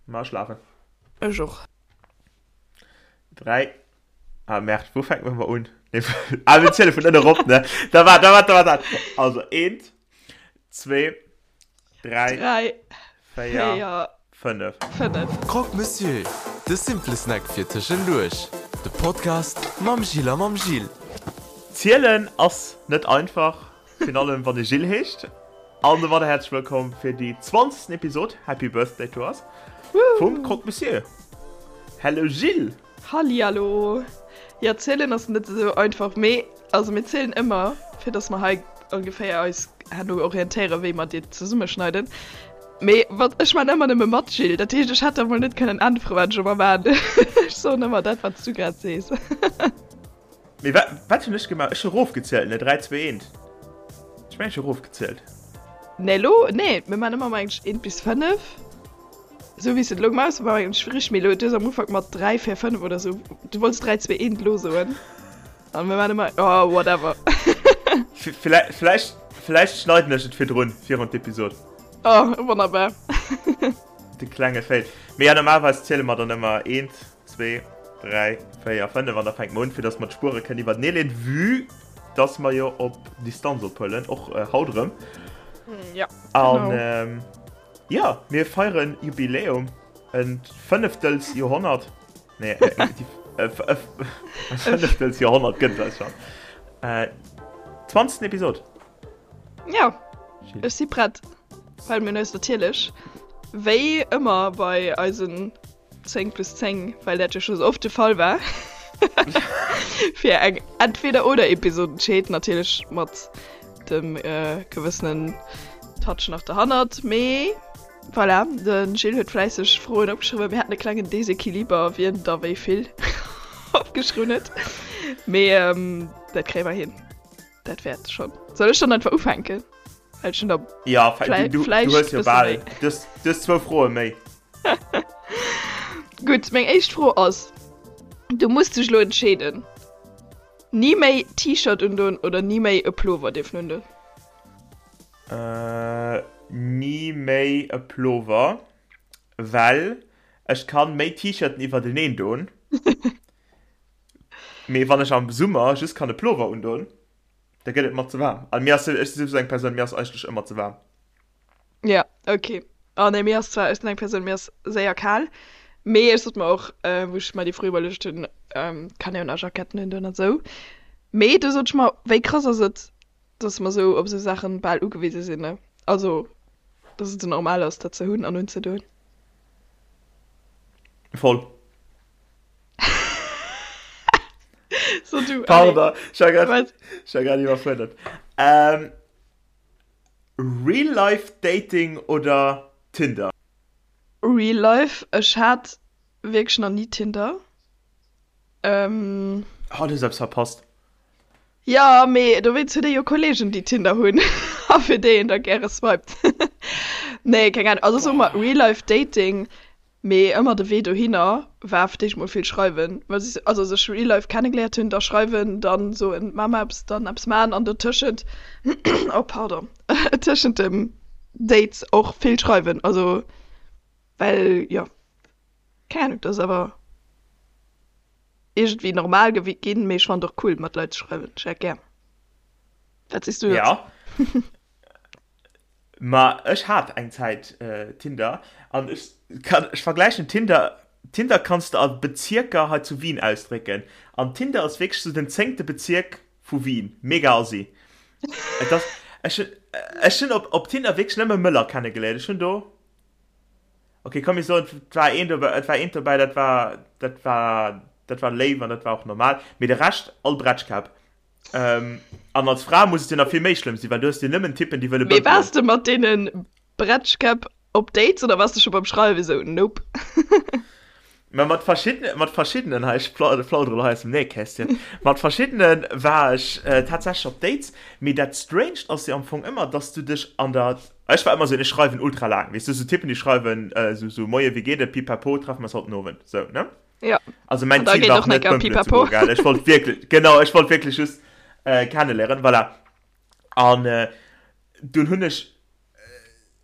Ma ech lafen. Ech och. 3 Ah merde, wou fänke mer un? Nee, ah, mir ziele vun ënne rop, ne? Da war, da war, da war dat. Also, eent, zwee, dräi, 3, 4, 4, 5. 5. Croque Monsieur, de simple Snack fir tëschenduerch. De Podcast mam Gilles a mam Gilles. Zielen ass net einfach, virun allem wann ee Gilles heescht. An domadder häerzlech wëllkomm fir déi zwanzegsten Episod, Happy Birthday to us, vum Croque Monsieur. Hello Gilles! Hallihallo! Jo, zielen ass net esou einfach, mee also mir zielen ëmmer, fir dass mer hei ongeféier eis herno orientéieren, wéi mer déi zesummeschneiden. Mee wat, ech maan ëmmer nëmme mat, Gilles, dat heescht, ech hätt der mol net kënnen äntweren, wat ech ëmmer maan. Ech soen ëmmer dat, wat s du grad sees. Mee wat, wat hunn ech gemaach? Ech hu rofgezielt, ne? 3, 2, 1. Ech mengen, ech hu rofgezielt. Nee, lo, nee, mir maan ëmmer mengen ech 1 bis 5. Esou wéi s de et elo gemaach hues, war mengen ech richteg. Mee elo, du hues am Ufank mat 3, 4, 5 oder esou, du wollts 3, 2, 1 elo soen. An mir maan ëmmer, oh, whatever. Villäicht, villäicht, villäicht schneiden ech et virdrun, virun d'Episod. Oh, wonnerbar. De klenge Fail. Mee ja, normalerweis ziele mer dann ëmmer 1, 2, 3, 4, 5 an da fänke mer un, fir dass mer d'Spuere kënnen iwwertenee leeën, vue dass mer jo op Distanz ophuelen, och haut erëm. Ja, An genau. jo, mir feieren Jubiläum, e fënneftels Joerhonnert. Nee, e fënneftels Joerhonnert gëtt et eis schonn. Zwanzegsten Episod. Ja, ech si prett, well mir hunn eis natierlech, wéi ëmmer bei eisen 10 plus 10, well dat jo scho sou oft de Fall war, fir eng Entweder-oder-Episod entscheet, natierlech mat dem gewëssenen Touch nach derhannert. Mee voilà, de Gilles huet fläisseg Froen opgeschriwwen. Mir haten e klengen Desequiliber, wien da wéi vill opgeschriwwen huet. Mee dat kréie mer hin. Dat wäert schonn. Soll ech dann einfach ufänken? Well ech hunn der Ja, du, du, du hues jo bal, du hues, du hues zwou Froe méi. Gutt, meng éischt Fro ass, Du muss dech elo entscheeden, Ni méi T-Shirt undoen oder ni méi e Plover dierfen undoen? Äh, ni méi e Plover, well ech kann méi T-Shirten iwwerteneen doen. Mee wann ech am Summer just kann e Plover undoen, da gëtt et mer ze waarm. An mir ass, ech si souwisou eng Persoun, mir ass eigentlech ëmmer ze waarm. Ja, ok. Oh nee, mir ass zwar, ech sinn eng Persoun, mir ass séier kal, mee ech sot mer och, wou ech mer déi Fro iwwerluecht hunn, kann een jo nach Jacketten undoen an esou. Mee du sot ech mer, wéi krass ass et, dass mer esou op esou Saachen bal ugewise sinn, ne? Also, dass et esou normal ass, dat ze hunn an unzedoen. Voll. So du, allez. Pardon, ech war grad, Wat? ech war grad iwwerfuerdert. Ähm, Real Life Dating oder Tinder? Real Life, ech hat wierklech nach ni Tinder. Ähm. Oh, du hues eppes verpasst. Jo, mee dowéinst huet ee jo Kollegen, déi Tinder hunn a fir déi een da gäre swiped. Nee, keng Ahnung. Also soe mer Real Life Dating, Mee ëmmer de Wee dohinner war fir d'éischt mol vill schreiwen, well si also sech real life kennegeléiert hunn, da schreiwen, dann soen maa mer eppes, dann eppes maachen an dotëschent, oh pardon, tëschent dem Dates och vill schreiwen, also well jo, keng Ahnung, dat ass awer iergendwéi normal ginn, mee ech fannen et och cool mat Leit ze schreiwen, ech hätt gär. Wat sees du dozou? Jo. Ma ech hat eng Zäit Tinder an ech kann, ech vergläichen Tinder, Tinder kanns de a Bezierker hei zu Wien ausdrécken an Tinder ass wierklech sou den zéngte Bezierk vu Wien, mega assi. Et ass, ech hunn, ech hunn op op Tinder wierklech nëmme Mëller kennegeléiert, ech hunn do, ok komm mir soen et war een dobäi, et war eent dobäi dat war, dat war, dat war léif an dat war och normal, mee de Rescht all Bretschkäpp. Ähm, an als Fra muss et jo nach vill méi schlëmm sinn, well du hues jo nëmmen Typen, déi wëlle Mee bëmpelen. waars de mat deene Bretschkäpp op Dates oder waars de scho beim Schreiwen esou, nope? Mä mat verschiddene, mat verschiddenen, hei, ech plaudere lo hei aus dem Nähkästchen, mat verschiddene war ech tatsächlech op Dates, mee dat Stranged ass jo am Fong ëmmer, dass du dech an der, ech war ëmmer esou, ech schreiwen ultra laang, weess du, esou Typen, déi schreiwen esou, esou, Moie, wéi geet et, pipapo, treffe mer eis haut den Owend, esou, ne? Ja. Also mein Ziel war net bëmpelen ze goen, gell? Ech wollt wierklech, genau, ech wollt wierklech just äh, kennenléieren, voilà. An äh, dunn hunn ech.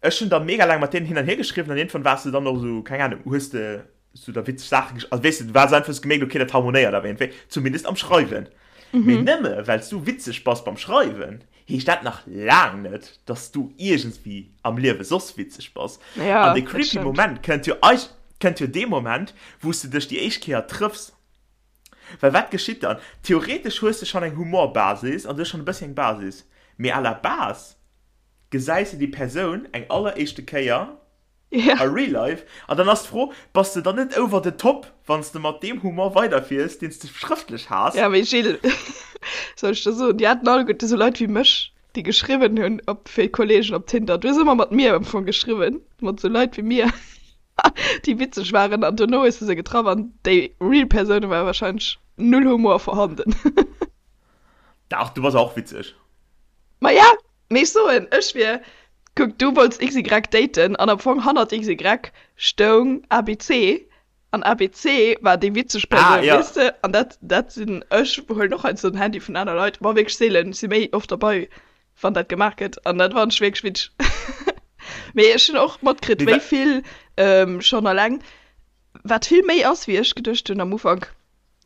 Ech hunn da mega laang mat deenen hin an hier geschriwwen an iergendwann waars de dann och esou, keng Ahnung, hues de sou da witzeg Saache gesch-, also weess de, du waars einfach, hues gemierkt, okay, dat harmonéiert awer iergendwéi, zumindest am Schreiwen. Mee nëmme well s du witzeg bass beim Schreiwen, heescht dat nach laang net, dass du iergendswéi am Liewe soss witzeg bass. Ja, An de dat creepy stëmmt. Moment kënnt jo eig-, kënnt jo dee Moment, wou s de dech déi éischt Kéier trëffs. Well wat geschitt dann? Theoretesch hues de schonn eng Humorbasis an du hues schonn e bëssi eng Basis, mee à la base gesäis de déi Persoun eng alleréischte Kéier Ja. a real life an dann ass d'Fro, bass de dann net over the top, wann s de mat deem Humor weiderfiers, deen s de schrëftlech has? Ja, mee Gilles, soll ech der soen, déi haten alleguerte sou Leit wéi mech, déi geschriwwen hunn op fir Kollegen op Tinder. Du hues ëmmer mat mir am Fong geschriwwen, mat sou Leit wéi mir, déi witzeg waren an dono hues de se getraff an déi real Persoune war wahrscheinlech null Humor vorhanden. Dach, du bass och witzeg. Ma ja, Mee ech soen, ech wier, kuck, du wollts XY daten an am Fong hannert XY stoung ABC an ABC war déi witzeg Ah, Persoun, ja. weess de? An dat, dat sinn, ech huelen och heiansdo den Handy vun aner Leit, ma wierklech seelen, ech si méi oft derbei, wann dat gemaach gëtt an dat fannen ech wierklech witzeg. Mee ech hunn och matkritt, Mee wéi wa. vill schonn alleng, wat vill méi ass, wéi ech geduecht hunn am Ufank.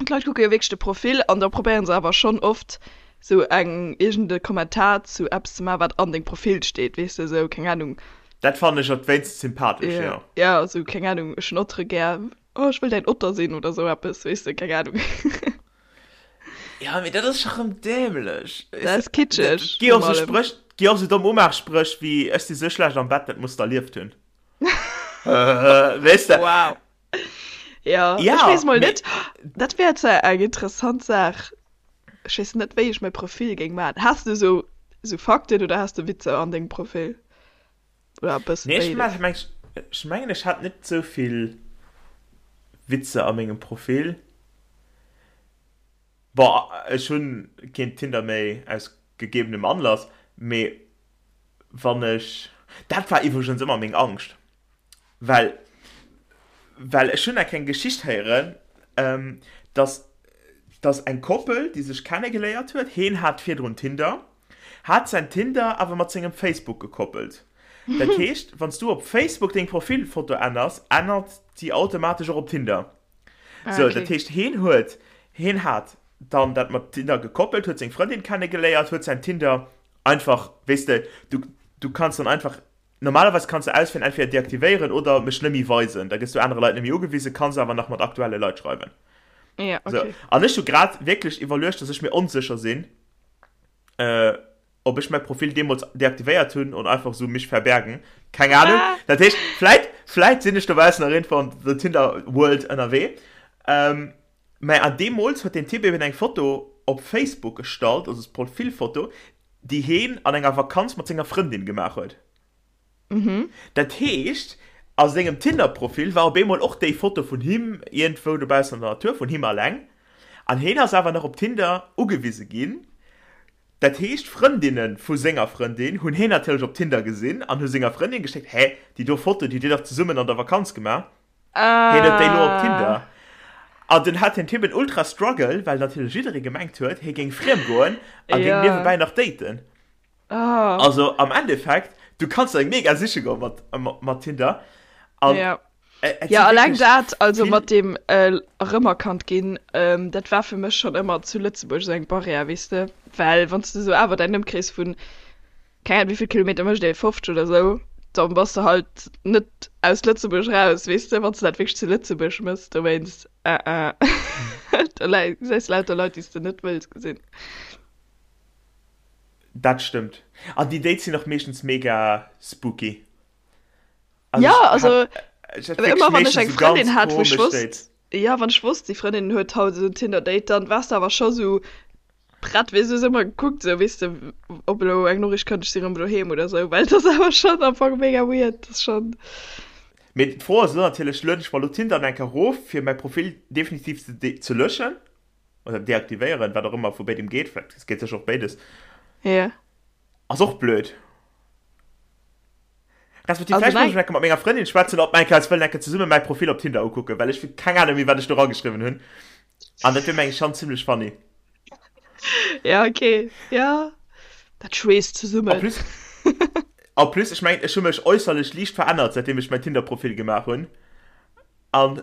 D'Leit kucke jo wierklech de Profil an da probéieren se awer schonn oft sou eng iergend e Kommentar zu eppes ze maachen, wat an dengem Profil steet, weess de, sou keng Ahnung. Dat fannen ech op d'wéinst sympathesch, Jo, jo. jo, sou keng Ahnung, ech hunn Ottere gär, oh ech wëll däin Otter sinn oder sou eppes, weess de, keng Ahnung. Ja, mee dat ass scho rëm dämlech, Dat weess de. ass kitscheg, Et gi och virun sou allem. Spréch, et gi och sou domm Umaachspréch wéi ech si sou schlecht am Bett, dat muss de erlieft hunn. Weess de. Wow. Ja, ja ech weess mol net. Dat wär zwar eng interessant Saach. Ech weess net, wéi ech mäi Profil géing maachen. Has du sou, sou Fakten oder has du Witzer an dengem Profil? Oder e bësse Nee, ech béides? mengen, ech mengen, ech hat net sou vill Witzer a mengem Profil. Bon, ech hunn keen Tinder méi aus gegebenem Anlass, mee wann ech, dat war iwwregens ëmmer meng Angscht, well, well ech hunn eng kleng Geschicht héieren, dass, dass eng Koppel, déi sech kennegeléiert huet, heen hat virdrun Tinder, hat säin Tinder awer mat sengem Facebook gekoppelt. Dat heescht, wann s du op Facebook deng Profilfoto änners, ännert déi automatesch och op Tinder. Ah, Sou, okay. dat heescht, heen huet, heen hat dann dat mat Tinder gekoppelt, huet seng Frëndin kennegeléiert, huet säin Tinder einfach, weess de, du, du kanns dann einfach, normalerweis kanns de auswielen, entweder deaktivéieren oder mech net méi weisen, da gëss du anere Leit net méi ugewisen, kanns awer nach mat aktuelle Leit schreiwen. Ja, Sou, okay. an ech hu grad wierklech iwwerluecht, dass ech mir onsécher sinn, äh, ob ech mäi Profil deemools deaktivéiert hunn oder einfach sou mich verbergen, keng Ahnung. Ah. Dat heescht, vläit, vläit sinn ech dobaussen nach iergendwou an der Tinder World ënnerwee. Ähm, mä an deemools huet deen Typ eben eng Foto op Facebook gestallt, also d'Profilfoto, déi heen an enger Vakanz mat senger Frëndin gemaach huet. Dat heescht, a sengem Tinder-Profil war op eemol och déi Foto vun him iergendwou dobaussen an der Natur, vun him alleng. An heen ass awer nach op Tinder ugewise ginn. Dat heescht, Frëndinne vu senger Frëndin hunn heen natierlech op Tinder gesinn an hu senger Frëndin geschéckt, Hä, déi do Foto, déi hutt Dir dach zesummen an der Vakanz gemaach? Heen huet déi elo op Tinder. An dunn hat den Typ en ultra Struggle, well natierlech jidderee gemengt huet, hie géing friem goen a géing niewebäi nach daten. Also am Endeffekt, du kanns eng mega siche goen mat, mat Tinder. An ja. Et, et ja, alleng dat, also mat dem äh, erëmerkannt ginn, ähm, dat war fir mech schon ëmmer zu Lëtzebuerg esou eng Barrière, weess de? Well wann s de sou awer däin Ëmkrees vun, keng Ahnung, wéi vill Kilometer mécht ee, 50 oder sou, dann bass de halt net aus Lëtzebuerg raus, weess de, wann s de dat wierklech zu Lëtzebuerg mëss, dowéinst, äh, äh, da gesäis de lauter Leit, déi s de net wëlls gesinn. Dat stëmmt. An déi Dates sinn och meeschtens mega spooky. Also ja, also hat, ëmmer wann ech eng Frëndin hat, wou ech wosst, ja, wann ech wosst, déi Frëndin huet haut esou en Tinder-Date, dann waars de awer scho sou prett, weess du, hues ëmmer gekuckt, sou, weess de, ob elo eng Noriicht kënnt, ech si rëm doheem oder sou, well et ass awer schonn am Fong mega weird, dat ass schonn. Mee d'Fro ass elo natierlech, lueden ech mer elo Tinder eng Kéier erof, fir mäi Profil definitiv ze, ze löschen? Oder deaktivéieren, wat och ëmmer vu béidem geet, vläicht, et geet sécher och béides. Ja. Ass och blöd. Respektiv also vläicht muss ech enke mat menger Frëndin schwätzen, ob mer enke eis wëllen enke zesumme mäi Profil op Tinder ukucken, well ech hu keng Ahnung méi, wat ech do rageschriwwen hunn. An dat wier meng ech schonn zimlech funny. Ja, okay. Ja. Dat schweesst zesummen. En plus. En plus, ech mengen, ech hu mech äusserlech liicht verännert, säitdeem ech mäin Tinder-Profil gemaach hunn. An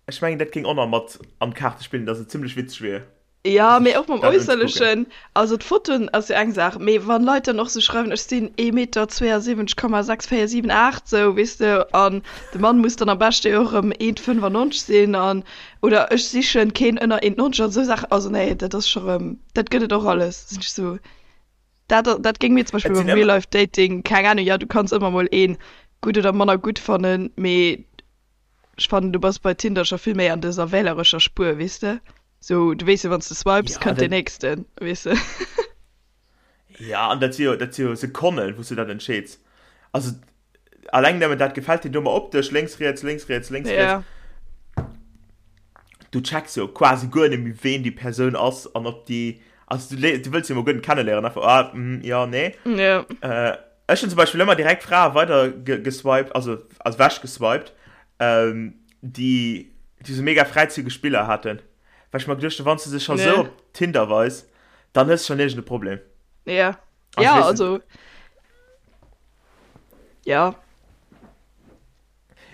ech mengen, dat géing och nach mat an d'Kaarte spillen, dass et zimmlech witzeg wier, Jo, mee sech och mam dat unzekucken. Äusserlechen. Also d'Fotoen ass jo eng Saach, mee wann Leit dann och sou schreiwen, ech sinn ee Meter 72 Komma 6 4 7 8 sou, weess de, an de Mann muss dann am beschte jo och erëm 1,95 sinn an, oder ech sichen keen ënner 1,90 an sou Saachen. Also nee, dat ass scho rëm, dat gëtt et och alles, sinn ech sou. Dat, dat géing mir zum Beispill Et beim sinn ëmmer. Real-Life-Dating, keng Ahnung, jo, du kanns ëmmer mol een gutt oder manner gutt fannen, mee ech fannen, du bass bei Tinder scho vill méi an dëser wählerescher Spuer, weess de? Sou, du weess jo, wann s de swipes, Ja, kënnt deen dat, nächsten, weess de? ja, an dat si jo, dat si jo Sekonnen, wou s du dat entscheeds. Also, Alleng nëmmen dat gefält dir do mer optesch, lénks, riets, lénks, riets, lénks, riets. Ja. Du checks jo quasi guer net méi ween déi Persoun ass an ob déi, also du, du wëlls jo mol guer net kenneléieren, einfach ah, mm, ja, nee. Ja. Äh, ech hunn zum Beispill ëmmer direkt Frae weider ge geswiped, also also wech geswiped, ähm, déi déi sou mega fräizügeg Biller haten. Well ech mer geduecht hunn, wann s du se scho sou Ja. op Tinder weis, dann hues du schonn iergend e Problem. Ja. Also, Ja, weess de, also Ja.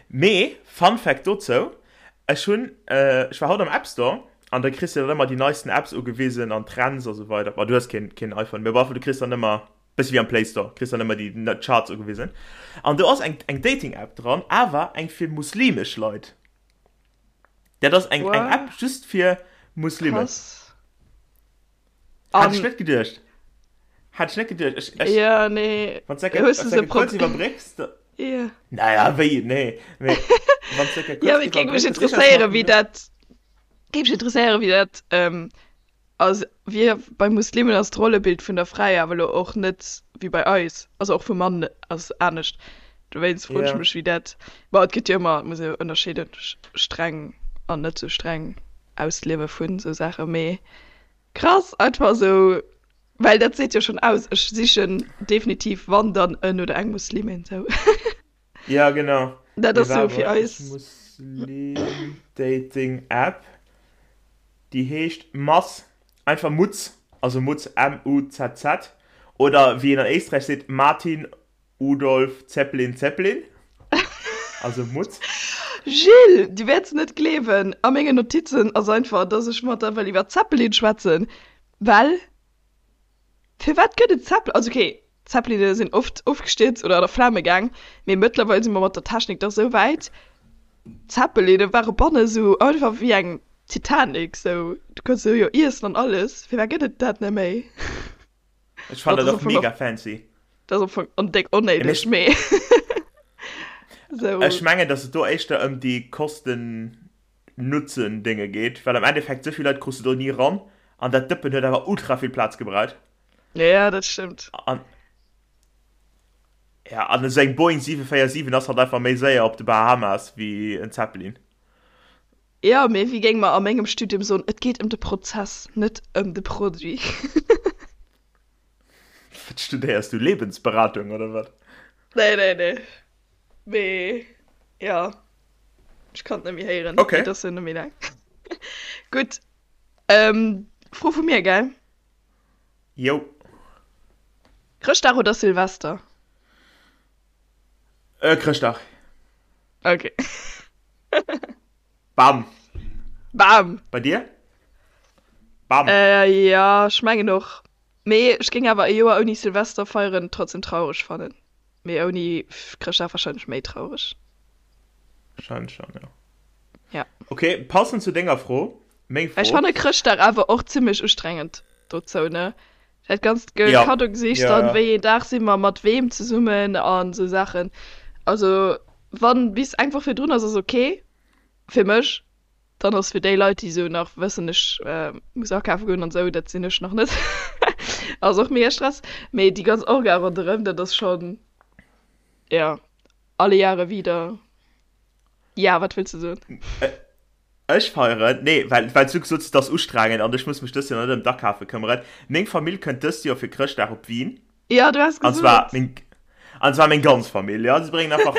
Mee, Fun Fact dozou, ech hunn, ech war haut am App Store an da kriss de dann ëmmer déi neisten Apps ugewisen an Trends a sou weider. Bon, du hues keen, keen iPhone, mee op alle Fall, du kriss dann ëmmer, bëssi wéi am Play Store, kriss dann ëmmer déi Charts ugewisen. An do ass eng, eng Dating-App dran, awer eng fir muslimesch Leit. Dat ass eng, eng App What? just fir Muslimen. Krass. Hat ech An net geduecht. Hat ech net geduecht. Ech, ech, ja, nee. wann s de Hues du se kurz prob iwwerbrécks, da, Ja. naja, wéi, nee, mee wann s de Ja, kurz mee et géing mech iwwerbrécks, sicher, ech interesséieren, mat wéi dat, géing mech interesséieren, wéi dat, ähm, also wéi bei Muslimen ass d'Rollebild vun der Fra jo awer elo och net wéi bei eis, also och vum Mann ass anescht. Dowéinst froen ech Ja. mech, wéi dat, bon, et gëtt jo ëmmer, et muss ee jo ënnerscheeden, streng an net sou streng Ausliewe vun sou Saachen, mee Krass, einfach sou, well dat seet jo schon aus, ech sichen definitiv wann dann en oder eng Muslimin sou. Ja genau. Dat Mee ass sou waart fir mol, ech eis. Muslim Dating App, déi heescht Maz, einfach Mutz, also Mutz M-U-Z-Z, oder wéi een an Éisträich seet Martin Udolf Zeppelin Zeppelin, also Mutz. Gilles, du wäerts net gleewen, a mengen Notizen ass einfach, dass ech mat der wëll iwwer Zeppelin schwätzen, well firwat gëtt et Zeppelin? Also okay, Zeppeline sinn oft ofgestierzt oder an a Flame gaang, mee mëttlerweil si mer mat der Technik dach sou wäit, Zeppeline ware banne sou einfach wéi eng Titanic, sou du kanns se jo iessen an alles, firwat gëtt et dat net méi? Ech fannen dat och mega fancy. Dat ass am Fong on déck onnéideg, mee sou. Ech mengen, dass et do éischter ëm déi Kosten-Nutzen-Dénge geet, well am Endeffekt esou vill Leit krus de do ni ran an dat Dëppen huet awer ultra vill Plaz gebraucht. Ja, dat stëmmt. An, ja, an esou eng Boeing 747 ass halt einfach méi séier op de Bahamas wéi en Zeppelin. Jo, mee wéi géinge mer a mengem Studium soen, et geet ëm de Prozess, net ëm de Produit. Wat studéiers du? Lebensberatung oder wat? Nee, nee, nee. Mee jo, ech kann et net méi héieren. Okay. Et ass jo net méi laang. Gutt, Fro vu mir, gell? Jo. Chrëschtdag oder Silvester? Chrëschtdag. Okay. Bam! Bam! Bei dir? Bam! Äh, ja, ech mengen och. Mee ech géing awer e Joer ouni Silvester feieren trotzdem traureg fannen. Mee ouni Chrëschtdag wahrscheinlech méi traureg. Wahrscheinlech schon, ja. Ja. Okay, passend zu denger Fro, meng Ech Fro. fanne Chrëschtdag awer och zimmlech ustrengend dozou, ne? Dat ganzt Ge Ja, Kaddogesichs ja, dann, ja. wéi een Dag si mer mat weem zesummen an esou Saachen. Also wann bis eng Woch virdrun ass, ass ok fir mech. Dann ass fir déi Leit, déi esou nach wëssen, ech muss akafe goen an esou, dat sinn ech nach net, ass och mega Stress. Mee déi ganz Orga ronderëm, dat ass schonn, ja, alle Jahre wieder. Ja, wat wëlls de soen? Ech feieren, nee, well, well s du gesot hues, et ass ustrengend an ech muss mech dëst Joer net ëm d'Akafe këmmeren. Meng Famill kënnt dëst Joer fir Chrëschtdag op Wien. Ja, du has An zwar gesot. meng, an zwar meng ganz Famill, ja. Si bréngen einfach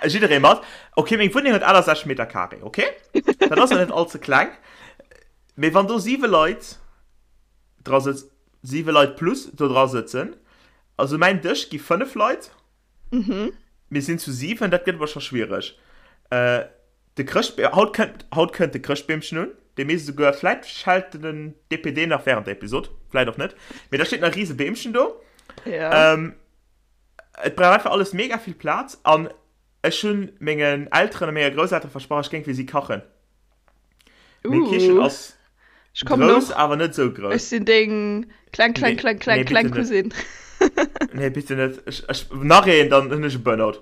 jidderee mat. Ok, meng Wunneng huet 68 Meter Carré, ok? Dat ass jo net all ze kleng. Mee wann do siwe Leit dra sëtz, siwe Leit plus do dra sëtzen, also mäin Dësch gi fënnef Leit. Mhm. Mir sinn zu 7, dat gëtt awer scho schwiereg. Äh, de Chrëschtbe haut kënnt, haut kënnt de Chrëschtbeemchen un. Dee misst esouguer, vläit schellt den DPD nach während der Episod, vläit och net. Mee da steet nach e riese Beemchen do. Ja. Ähm, et brauch einfach alles mega vill Plaz an ech hunn mengen Elteren a menger Grousseltere versprach, ech géing fir si kachen. Meng Kichen Uh, ass ech kommen grouss, och. awer net esou Ech grouss. sinn deng kleng, kleng, Nee, kleng, kleng, nee, kleng bitte net. Cousine. Nee, bitte net. Ech, ech, nach een, dann hunn ech e Burnout.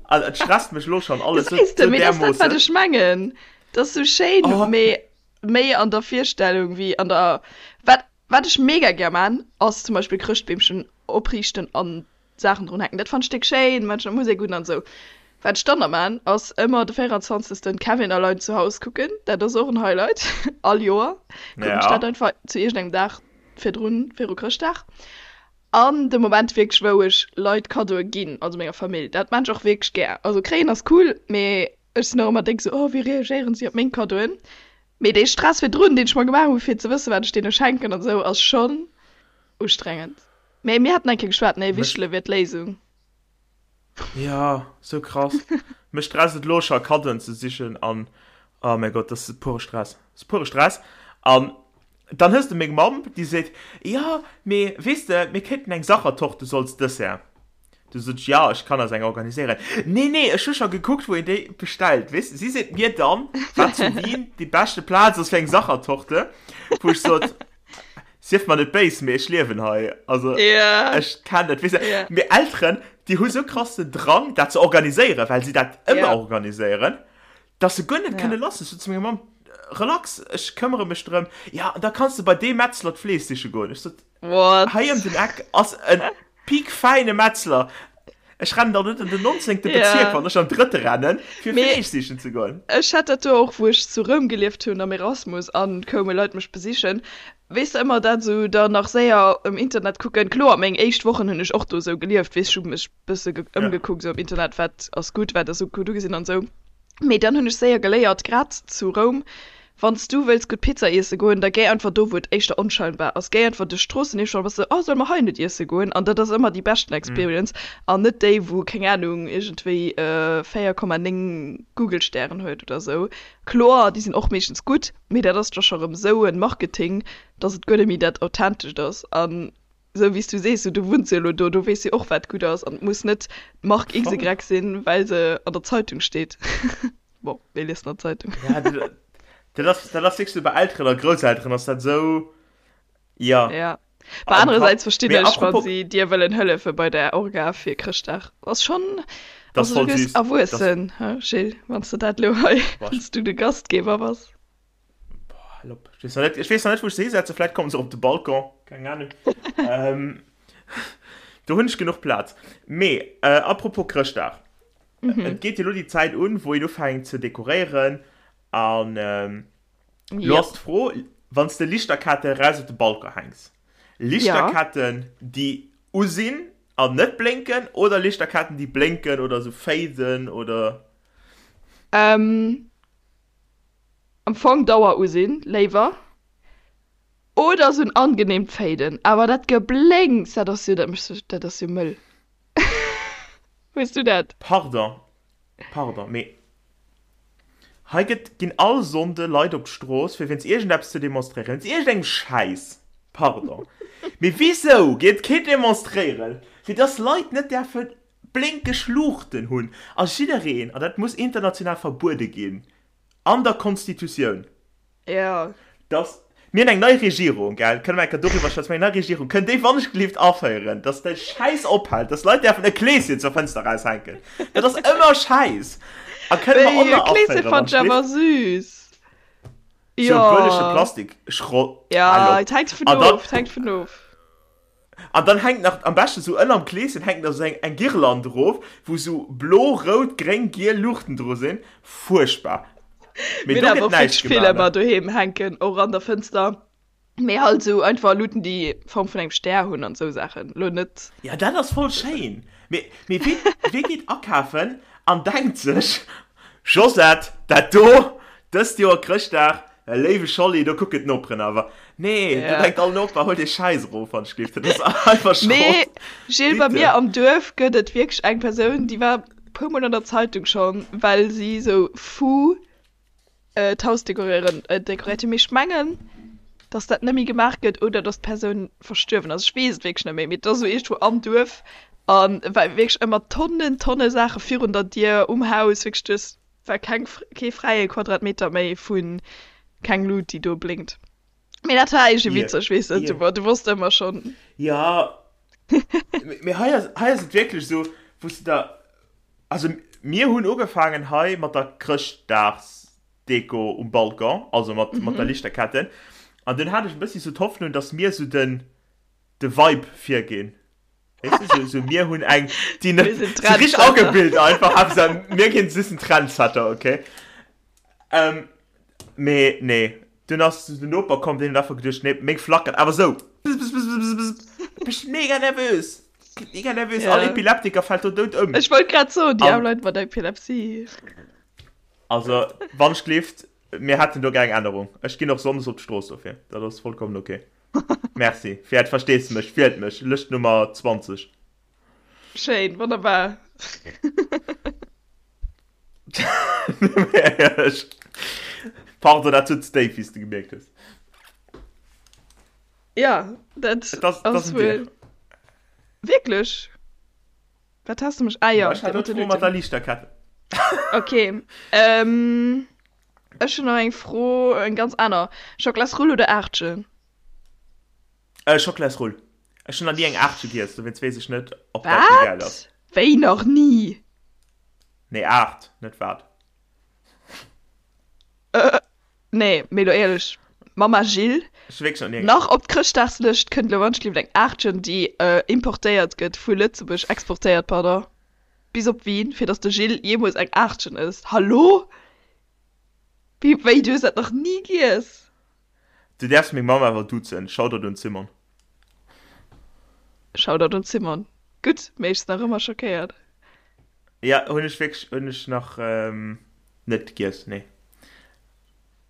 Also, et stresst mech lo schon alles sou, Gesäis de, sou mee dat ass dat, wat därmoossen. ech mengen. Dat ass sou schéin, Oh, mee méi an der Virstellung wéi an der. Wat, wat ech mega gär man, ass zum Beispill Chrëschtbeemchen opriichten an Saachen drun hänken. Dat fannt ech déck schéin, mat der Musek un an esou. Wat ech dann nach maan, ass ëmmer de 24. Kevin allein zu Haus kucken. Dat ass och en Highlight. All Joer kucken ech ja. dat einfach zu iergendengem Dag virdrun, viru Chrëschtdag. An de Moment wierklech, wou ech Leit Kaddoe ginn, also menger Famill, dat maan ech och wierklech gär. Also kréien ass cool, mee ech sinn och ëmmer déck esou, oh wéi reagéieren si op meng Kaddoen? Mee dee Stress virdrun, deen ech mer gemaach hu fir ze wëssen, wat ech deene schenken an esou, ass schonn ustrengend. Mee mir haten eng Kéier geschwat, nee, Wichtele wier d'Léisung. Ja, sou krass. Mech stresst et lo scho Kaddoen ze sichen an oh mäi Gott, dat ass pure Stress. Dat ass pure Stress. An dann hues de meng Mamm, déi seet, jo, mee weess de, mir kéinten eng Sachertorte sou als Dessert. Du sot ech, jo, ech kann eis eng organiséieren. Nee, nee, ech hu scho gekuckt, wou een déi bestellt. Weess de, si seet mir dann, wat zu Wien déi beschte Plaz ass fir eng Sachertorte, wou ech sot, Sief mer net béis, mee ech liewen hei. Also, yeah. ech kenn dat. Weess de, yeah. Mir Elteren, déi hu sou krass den Drang, dat ze organiséieren, well si dat ëmmer yeah. organiséieren, dass se guer net yeah. kënne lass. Ech sot zu menger Mamm, relax, ech këmmere mech drëm. Ja, an da kanns de bei dee Metzler d'Fleesch siche goen. Ech sot, What? hei ëm den Eck ass en piekfäine Metzler. Ech rennen dann net an den 19. Bezierk, wann ech an drëtte rennen, fir Mee Fleesch sichen ze goen. ech hat dat do och, wou ech zu Roum gelieft hunn am Erasmus an koume Leit mech besichen. Weess de ëmmer dat esou dann nach séier um Internet kucken. Kloer, meng éischt Wochen hunn ech och do esou gelieft, weess, ech hu mech bësse ëmgekuckt esou am Internet, wat ass gutt, wat ass gutt ugesinn an esou. Mee dann hunn ech séier geléiert, grad zu Roum, wann s du wëlls gutt Pizza iesse goen, da géi einfach do, wou et éischter onscheinbar ass. Géi einfach duerch d'Stroossen eescht an da bass de, oh, solle mer hei net iesse goen? An dat ass ëmmer déi beschten Experience an net déi, wou, keng Anung, iergendwéi 4,9 Google-Stären huet oder esou. Kloer, déi sinn och meeschtens gutt, mee dat ass da scho rëm esou e Marketing, dass et guer net méi dat Authentescht ass. An Esou wéi s du sees, du wunns jo elo do, do weess jo och wat gutt ass an et muss net d'Mark XY sinn, well se an der Zeitung steet. Bon, wee liest nach d'Zeitung? Ja, dat ass, dat ass wierklech esou, bei Elteren a Grousselteren ass dat esou, ja. Ja. Mä anerersäits verstinn ech, wa si dir wëllen hëllefe bei der Orga fir Chrëschtdag. Ass schonn, also du gëss erwuessen, he Gilles, wann s de dat elo hei, wann s du de Gastgeber bass. Boah, hal op. Ich weess nach net, ich weess nach net, wou ech se hisetzen. Vläit kommen se op de Balcon. Keng Ahnung. ähm, do hunn ech genuch Plaz. Mee, äh, apropos Chrëschtdag. Mhm. Et geet jo lo déi Zäit un, wou een ufänkt ze dekoréieren. An ähm, lo Ja. ass d'Fro, wann s de Lichterketten eraus op de Balcon hänks. Lichterketten, déi u sinn an net blénken, oder Lichterketten, déi blénken oder sou faden oder. Ähm, Am Fong Dauer usinn, léiwer. Oder sou en angenehmt Faden. Awer dat Geblénks, dat ass jo, dat mécht sech, dat ass jo mëll. Hues du dat? Pardon, pardon, mee hei gëtt, ginn all Sonnde Leit op d'Strooss fir wéinst iergendeppes ze demonstréieren, wéinst iergendengem Schäiss. Pardon, mee wisou geet keen demonstréieren, fir dass Leit net däerfe blénkeg Luuchten hunn a jiddereen, an dat muss international verbuede ginn an der Constitutioun, Jo. dass, mir hunn eng nei Regierung, gell, kënne mer eng Kéier doriwwer schwätzen, mir hunn eng nei Regierung, kënnt déi wannechgelift aféieren, dass de Schäiss ophält, dass Leit däerfen e Kleeschen zur Fënster eraushänken, dat ass ëmmer Schäiss, a kënne mer Wéi, och e nach Kleeschen aféieren, fannt ech awer wannechgelift? süß. Sou e bëllege Jo. Plastikschrott, Ja, hal op. et hänkt vun An dann. of, et hänkt vun of. An dann hänkt nach, am beschten sou ënnerm Kleeschen hänkt nach sou eng, eng Girlande erof, wou sou blo, rout, gréng, giel Luuchten dru sinn. Fuerchtbar. Mee Mir do hunn gëtt awer och näischt wierklech vill gemaach, ne? ëmmer doheem hänken, och an der Fënster. Mee halt sou einfach Luuten, déi Form vun engem Stär hunn an sou Saachen. Lo net. Ja, dat ass voll schéin. Mee, mee wee, wee geet akafen an denkt sech, Josette, dat do, dëst Joer Chrëschtdag, léiwe Scholli, do kucken d'Noperen awer. Nee, ja. du denkt all Noper, hol dee Schäiss erof, wann ech gleef. Dat ass einfach Schrott. Mee, Gilles, bei mir am Duerf gëtt et wierklech eng Persoun, déi war puer mol an der Zeitung schonn, well si sou fou äh, d'Haus dekoréieren, äh, dekoréiert hunn. Mee ech mengen, dass dat net méi gemaach gëtt oder dass d'Persoun verstuerwen ass. Ech weess et wierklech net méi, mee et ass esou iergendwou am Duerf a war wierklech ëmmer Tonnen, Tonne Saache virun der Dier, um Haus, wierklech du hues war keng, kee fräie Quadratmeter méi vu keng Lut, déi do blénkt. Mee dat war iergendwéi witzeg, weess de, du, du wosst ëmmer schonn. Jo, mee hei ass, hei ass et wierklech esou, wou s de der, also mir hunn ugefaangen hei mat der Chrëschtdagsdeko um Balcon, also mat, mat der Lichterketten, an dunn hat ech e bëssi sou d'Hoffnung, dass mir sou den, de Vibe virginn. Weess de, sou, sou mir hunn eng, déi net, sou richteg agebilt einfach, Haaptsaach mir ginn, si sinn Trendsetter, okay. Ähm, mee nee, dunn ass den Noper komm, deen huet einfach geduecht, nee, meng flackert awer sou, bzz-bzz-bzz-bzz, bist mega nervös, mega nervös, all Epileptiker fält do dout ëm. Ech wollt grad soen, déi aarm Leit mat Epilepsie. Also, wann ech gleeft, mir hätten do gär eng Ännerung. Ech ginn och sonndes op d'Strooss dofir, dat ass vollkommen ok. Merci fir äert Versteesdemech. Wielt mech, Lëscht Nummer 20. Schéin, wonnerbar. Pardon, dat sutz déif, wéi s de gemierkt hues. Ja, dat ass wuel. Wierklech? Wat has de mech? Ah jo, Ech hat elo mat der Liichterkette. Ok. Ähm. Ech hunn nach eng Fro, eng ganz aner. Schockelasrull oder Aartchen? Äh, Schockelasrull. Ech hunn nach ni eng Aartche giess, dowéinst weess ech net, ob dat méi gäil ass. Wat? Wéi nach ni? Nee, Aart, net wat. Äh, nee, mee lo éierlech, Mama Jill, Ech hu wierklech nach ni eng. nach op d'Chrëschtdagslëscht kënnt lo wannschlift eng Aartchen, déi importéiert gëtt vu Lëtzebuerg, exportéiert, pardon. Bis op Wien, fir dass de Gilles jeemools eng Aachtchen ësst. Hallo? Wéi, wéi, du hues dat nach ni giess? Du däerfs meng Mamm awer duzen. Shoutout un d'Simon. Shoutout un d'Simon. Gutt, mee ech sinn nach ëmmer schockéiert. Ja, hunn ech wierklech, hunn ech nach net giess, nee.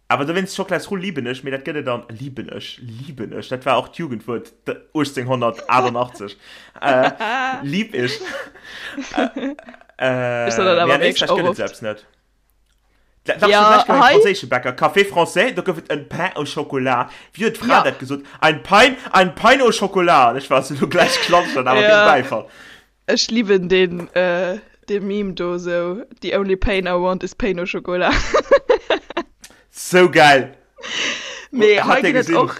Awer dowéinst, Schockelasrull liben ech, mee dat gëtt et an, liben ech, liben ech, dat war och d'Jugendwuert 1888, lieb ich. Ech soen dat Mee awer an wierklech Éisträich och gëtt et oft. se eppes net. Dach, Ja, ech war beim hei. franséische Bäcker, Café Français, do gouf et en Pain au Chocolat. Wéi huet d'Fra Ja. dat gesot? Ein Pain, ein Pain au Chocolat. An ech war esou, lo gläich klatscht dat awer deen Ja. Bäifall. Ech liwen deen dee Meme do sou the only pain I want is pain au chocolat. Sou geil! Mee hei Hat dir ginn et gesinn? och,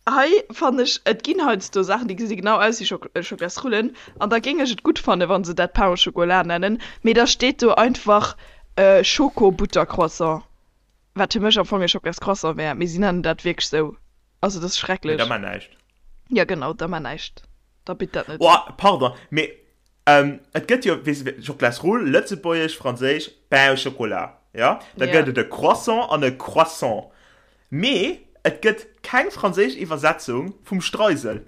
hei fannen ech et ginn heiansdo Saachen déi gesi genau aus wéi Schocklasrullen an da géing ech et gutt fannen wa se dat pain au chocolat nennen, mee da steet do einfach Schoko-Buttercroissant, wat fir mech am Fong e Schocklascroissant wär, mee si nennen dat wierklech sou, also dat ass Mee da schrecklech. mar näischt. Jo genau, da mar näischt. Da bitt dat net. Oh, pardon, mee et gëtt jo, weess de, Schockelasrull, lëtzebuergesch, franséisch, Pain au chocolat, jo? Da gëtt et e Croissant an e Croissant. Mee et gëtt keng franséisch Iwwersetzung vum Streisel.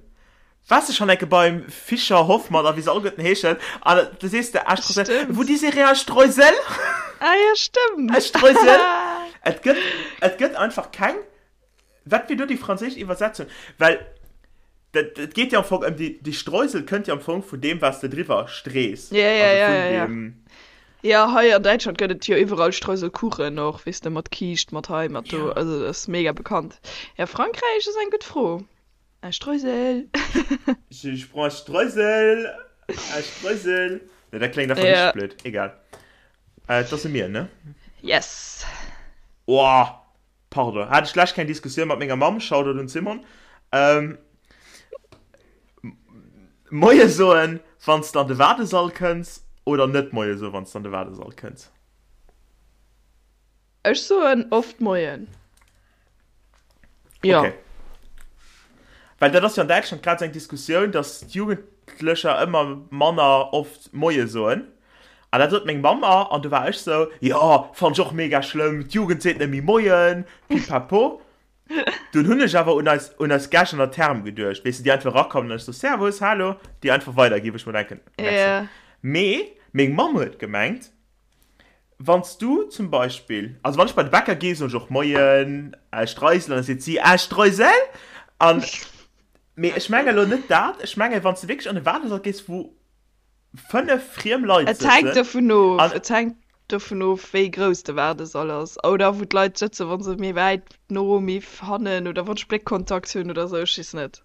Waars de schonn enke beim Fischer, Hoffmann a wéi se alleguerten heeschen, an da sees de, ah, Streusel, Stëmmt. vous désirez un Streusel? Ah jo, stëmmt. E Streusel? Et gëtt, et gëtt einfach keng Wat wier do déi franséisch Iwwersetzung? Well dat, et geet jo am Fong ëm déi, déi Streusel kënnt jo am Fong vun deem, wat s de driwwer strees. Ja, ja, Also ja, vun ja, ja. deem. Ja, hei an Däitschland gëtt et jo iwwerall Streuselkuchen och, weess de, mat Kiischt, mat hei, mat do. Ja. Also dat ass mega bekannt. Ja, Frankräich ass eng gutt Fro. Un Streusel. Je, je prends un Streusel, un Streusel. Nee, dat kléngt einfach Ja. richteg blöd. Egal. Äh, et ass u mir, ne? Yes. Oh, Pardon, hat ech d'lescht keng Diskussioun mat menger Mamm, Shoutout un d'Simone. Ähm, Moie soen, wann s de an de Waardesall kënns oder net Moie soen, wann s de an de Waardesall kënns? Ech soen oft Moien. Jo. Okay. Well dat ass jo an Däitschland grad esou eng Diskussioun, datt d'Jugendlecher ëmmer manner oft Moie soen. An dat sot meng Mamm mer, an du war ech sou, jo, fannt ech och mega schlëmm, d'Jugend seet net méi Moien, pipapo. Dunn hunn ech awer un eis, un eis Gäscht an der Therm geduecht, weess de, déi einfach erakommen an ech sou, Servus, hallo, déi einfach weiderginn, wou ech mer denken, merci. Ja. Mee meng Mamm huet gemengt, Wann s du zum Beispill, also wann ech bei de Bäcker gi soen ech och Moien, Streisel, an da seet si, Ah, Streusel? An, mee ech menge lo net dat, ech menge wann s de wierklech an e Waardesall gees, wou 5 friem Leit Et hänkt sëtzen dovun of, an. et hänkt dovun of, wéi grouss de Waardesall ass oder wou d'Leit sëtzen, wa se méi wäit no, méi hannen oder wann ech Bléckkontakt hunn oder sou, ech weess net.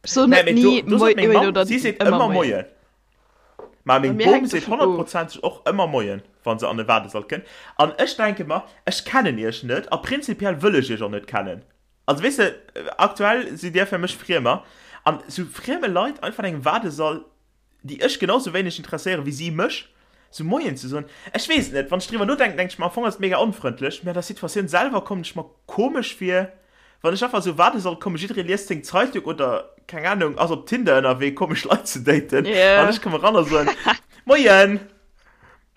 Ech soen Nee, net mee do, ni do Moi sot meng moien Mamm, oder si seet ëmmer ëmmer Moien. Moien. Mä Bei meng mir Bom hänkt seet dovun of. honnertprozenteg och ëmmer Moien, wa se an e Waardesall kënnt. An ech denke mer, ech kennen iech net a prinzipiell wëll ech iech och net kennen. Also weess de, aktuell sidd dir fir mech Friemer. An sou frieme Leit einfach an engem Waardesall, déi ech genau sou wéineg interesséieren, wéi si mech, sou Moien ze soen, ech weess et net. Wann ech driwwer nodenken, denke ech mer, am Fong ass et mega onfrëndlech, mä an der Situatioun selwer kommen ech mer komesch vir, wann ech einfach sou Waardesall kommen, jidderee liest seng Zeitung oder, keng Ahnung, ass op Tinder ënnerwee, komesch Leit ze daten, an ech komme ran a soen, Moien!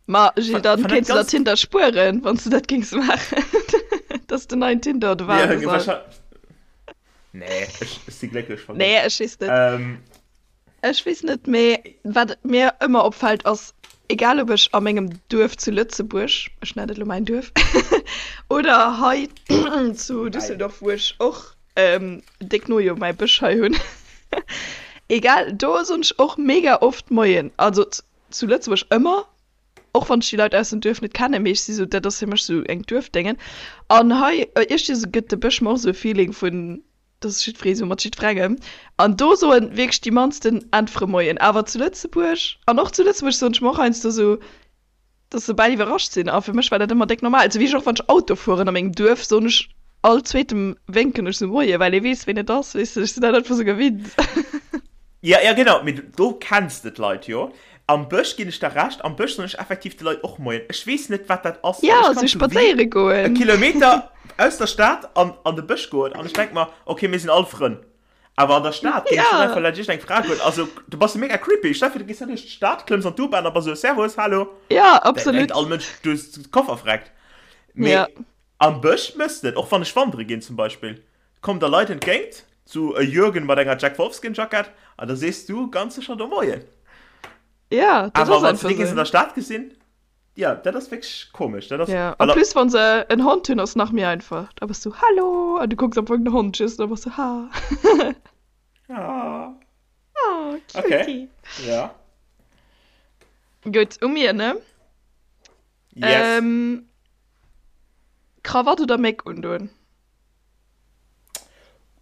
Ma Gilles, dann Fan dat kéints du der ganz. Tinder spueren, wann s du dat géings maachen. Dat ass den neien Tinder, de Ja, Waardesall. wahrscheinlich. Nee, ech, ech si glécklech verginn. Nee, ech weess net. Ähm, Ech weess net, mee wat mir ëmmer opfält ass, egal ob ech a mengem Duerf zu Lëtzebuerg, ech nennen et elo mäin Duerf, oder hei zu mäin. Düsseldorf, wou ech och déck no jo mäi Bësch hei hunn, egal, do soen ech och mega oft Moien. Also zu Lëtzebuerg ëmmer, och wann ech déi Leit aus dem Duerf net kennen, mee ech si sou, dat ass fir mech sou eng Duerfdéngen. An hei iergendwéi gëtt de Bësch mer och sou e Feeling vun, dass jiddweree sou mat jiddwerengem. An do soen wierklech déi mannsten äntwere Moien. Awer zu Lëtzebuerg, an och zu Lëtzebuerg soen ech mer och heiansdo sou, dass se bal iwwerrascht sinn. A fir mech war dat ëmmer déck normal. Sou wéi ech och wann ech Auto fueren a mengem Duerf, soen ech all zweetem wénken ech sou Moie, well ee weess ween et ass, weess de. Ech sinn dat einfach sou gewinnt. Ja, ja genau, mee do kenns de d'Leit jo. Am Bësch ginn ech der Recht, am Bësch soen ech effektiv de Leit och Moien. Ech weess net, wat dat ass, well Ja, ech sou kann zu Wien spadséiere e goen. Kilometer aus der Stad an an de Bësch goen an ech denk mer, okay, mir sinn all Frënn. Awer an der Stad géing ech net Ja. einfach laanscht iergendeng Fra goen. Also, du bass jo mega creepy. Stell dir vir, du gees da duerch d'Stad, klëmms an d'U-Bahn a bass esou, Servus, hallo. Ja, Da denkt absolut. all Mënsch, du hues de Koffer vreckt. Mee Ja. am Bësch mëss de et, och wann ech wandere ginn zum Beispill. Kommen der Leit entgéint, sou e Jürgen mat enger Jack Wolfskin Jackett, an da sees du ganz sécher do Moien. Ja, dat Awer ass wann s de einfach déi géings an sou. der Stad gesinn, ja, dat ass wierklech komesch. Dat ass, Ja, well en plus wann se en Hond hunn ass nach méi einfach. Da bass du Hallo an du kucks am Fong den Hond just an da bass du Ha. Ah. Oh, Okay, cutie. ja. Gutt, u mir, ne? Yes. Ähm, Krawatt oder Méck undoen?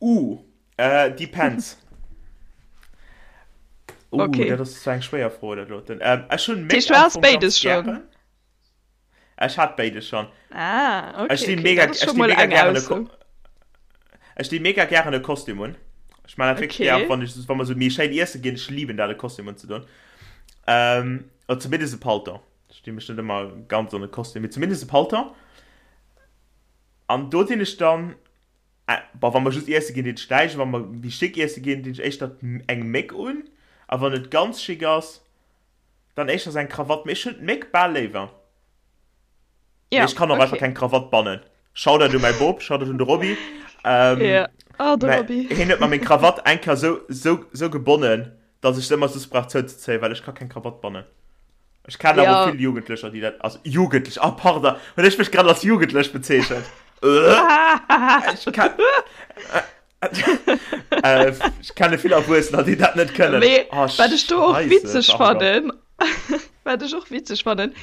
Uh, äh, depends. Uh, Okay. dat ass zwar eng schwéier Fro, dat doten. Ähm, ech hunn Dat heescht, Méck du am has Fong béides ganz schonn? gären. Ech hat béides schonn. Ah, Ech okay, stinn okay. mega, Dat ass ech scho stinn mol mega eng gären e Ausso. Ko ech stinn mega gären e Kostüm un. Ech man dat wierklech gär, Okay. wann ech, wann mer sou méi schéin iesse ginn. Ech liben dat, e Kostüm unzedoen. Ähm, oder zumindest e Paltong. Ech dinn mech net ëmmer ganz an e Kostüm, mee zumindest e Paltong. An do dinn ech dann, bon, wa mer just iesse ginn, dinn ech näischt, wa mer méi schick iesse ginn, dinn ech éischter eng Méck un. A wann et ganz schick ass, dann éischter eng Krawatt. Mee ech hunn d'Méck bal léiwer. Mee Ja, ech kann och einfach okay. keng Krawatt bannen. Shoutout u mäi Bop, Shoutout un de Roby. Ähm, Ja. Oh, de mä Roby. hien huet mer meng Krawatt eng Kéier sou, sou, sou gebonnen, dass ech se ëmmer soss brauch zouzezéien, well ech ka keng Krawatt bannen. Ech kennen awer Ja. vill Jugendlecher, déi dat, also Jugendlech, ah pardon, hunn ech mech grad als Jugendlech bezeechent? Ech ken, äh, ech kenne vill Erwuessener, déi dat net kënnen. Mee Oh, wat ech do och Scheisse, witzeg pardon. fannen, wat ech och witzeg fannen,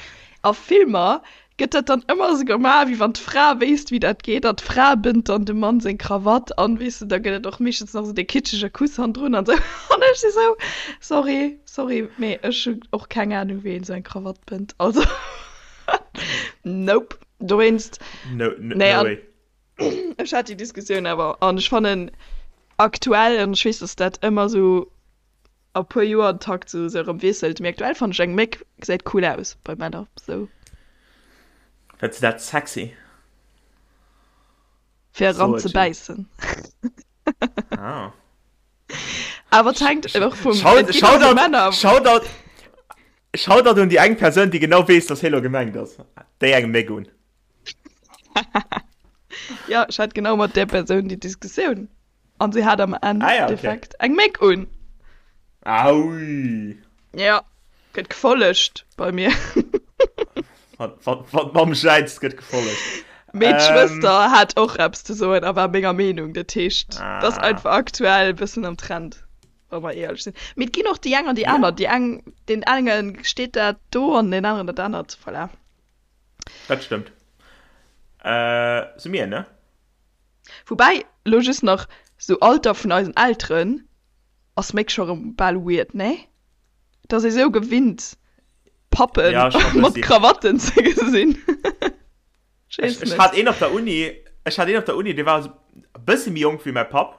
a Filmer gëtt dat dann ëmmer esou gemaach, wéi wann d'Fra wéisst, wéi dat geet, an d'Fra bënnt dann dem Mann seng Krawatt an, weess de, da gëtt et och meeschtens nach esou dee kitschege Kuss hannendrun an esou. An ech si sou, sorry, sorry, mee ech hunn och keng Anung, wéi een esou eng Krawatt bënnt, also nope. Dowéinst, No, no, nee, no an way. ech hat déi Diskussioun awer, an ech fannen aktuell, an ech weess, dass dat ëmmer esou a puer Joer den Takt sou sou erëm wiesselt, mee aktuell fannen ech eng Méck gesäit cool aus bei Männer sou. Fënns de dat sexy? Fir eran So ze et Jill. bäissen. Ah. Awer et hänkt och vum, Shout, et ginn och Shoutout, Männer. Shoutout, Shoutout un déi eng Persoun, déi genau weess, dass hie lo gemengt ass. Déi eng Méck un. Jo, ech hat genau mat där Persoun déi Diskussioun. An si hat am Ah ja, okay. Endeffekt eng Méck un. Aui. Ja, gëtt gefollegt bei mir. Wann, wann, wann d'Mamm jäizt, gëtt gefollegt. Mee d'Schwëster hat och eppes ze soen a war menger Meenung. Dat heescht, dat ass einfach aktuell e bëssen am Trend, wa mer éierlech sinn. Mee et ginn och déi eng an déi aner. Déi eng, deen enge steet dat do an deen aneren dat anert. Voilà. Dat stëmmt. Si mir, ne? Woubäi, elo just nach, sou Alter vun eisen Elteren ass méck scho rëm bal weird, nee? Et ass ee sou gewinnt. Pappen ja, mat Krawatten ze gesinn. Ech, ech hat een op der Uni, ech hat een op der Uni, dee war e bëssi méi jonk wéi mäi Papp.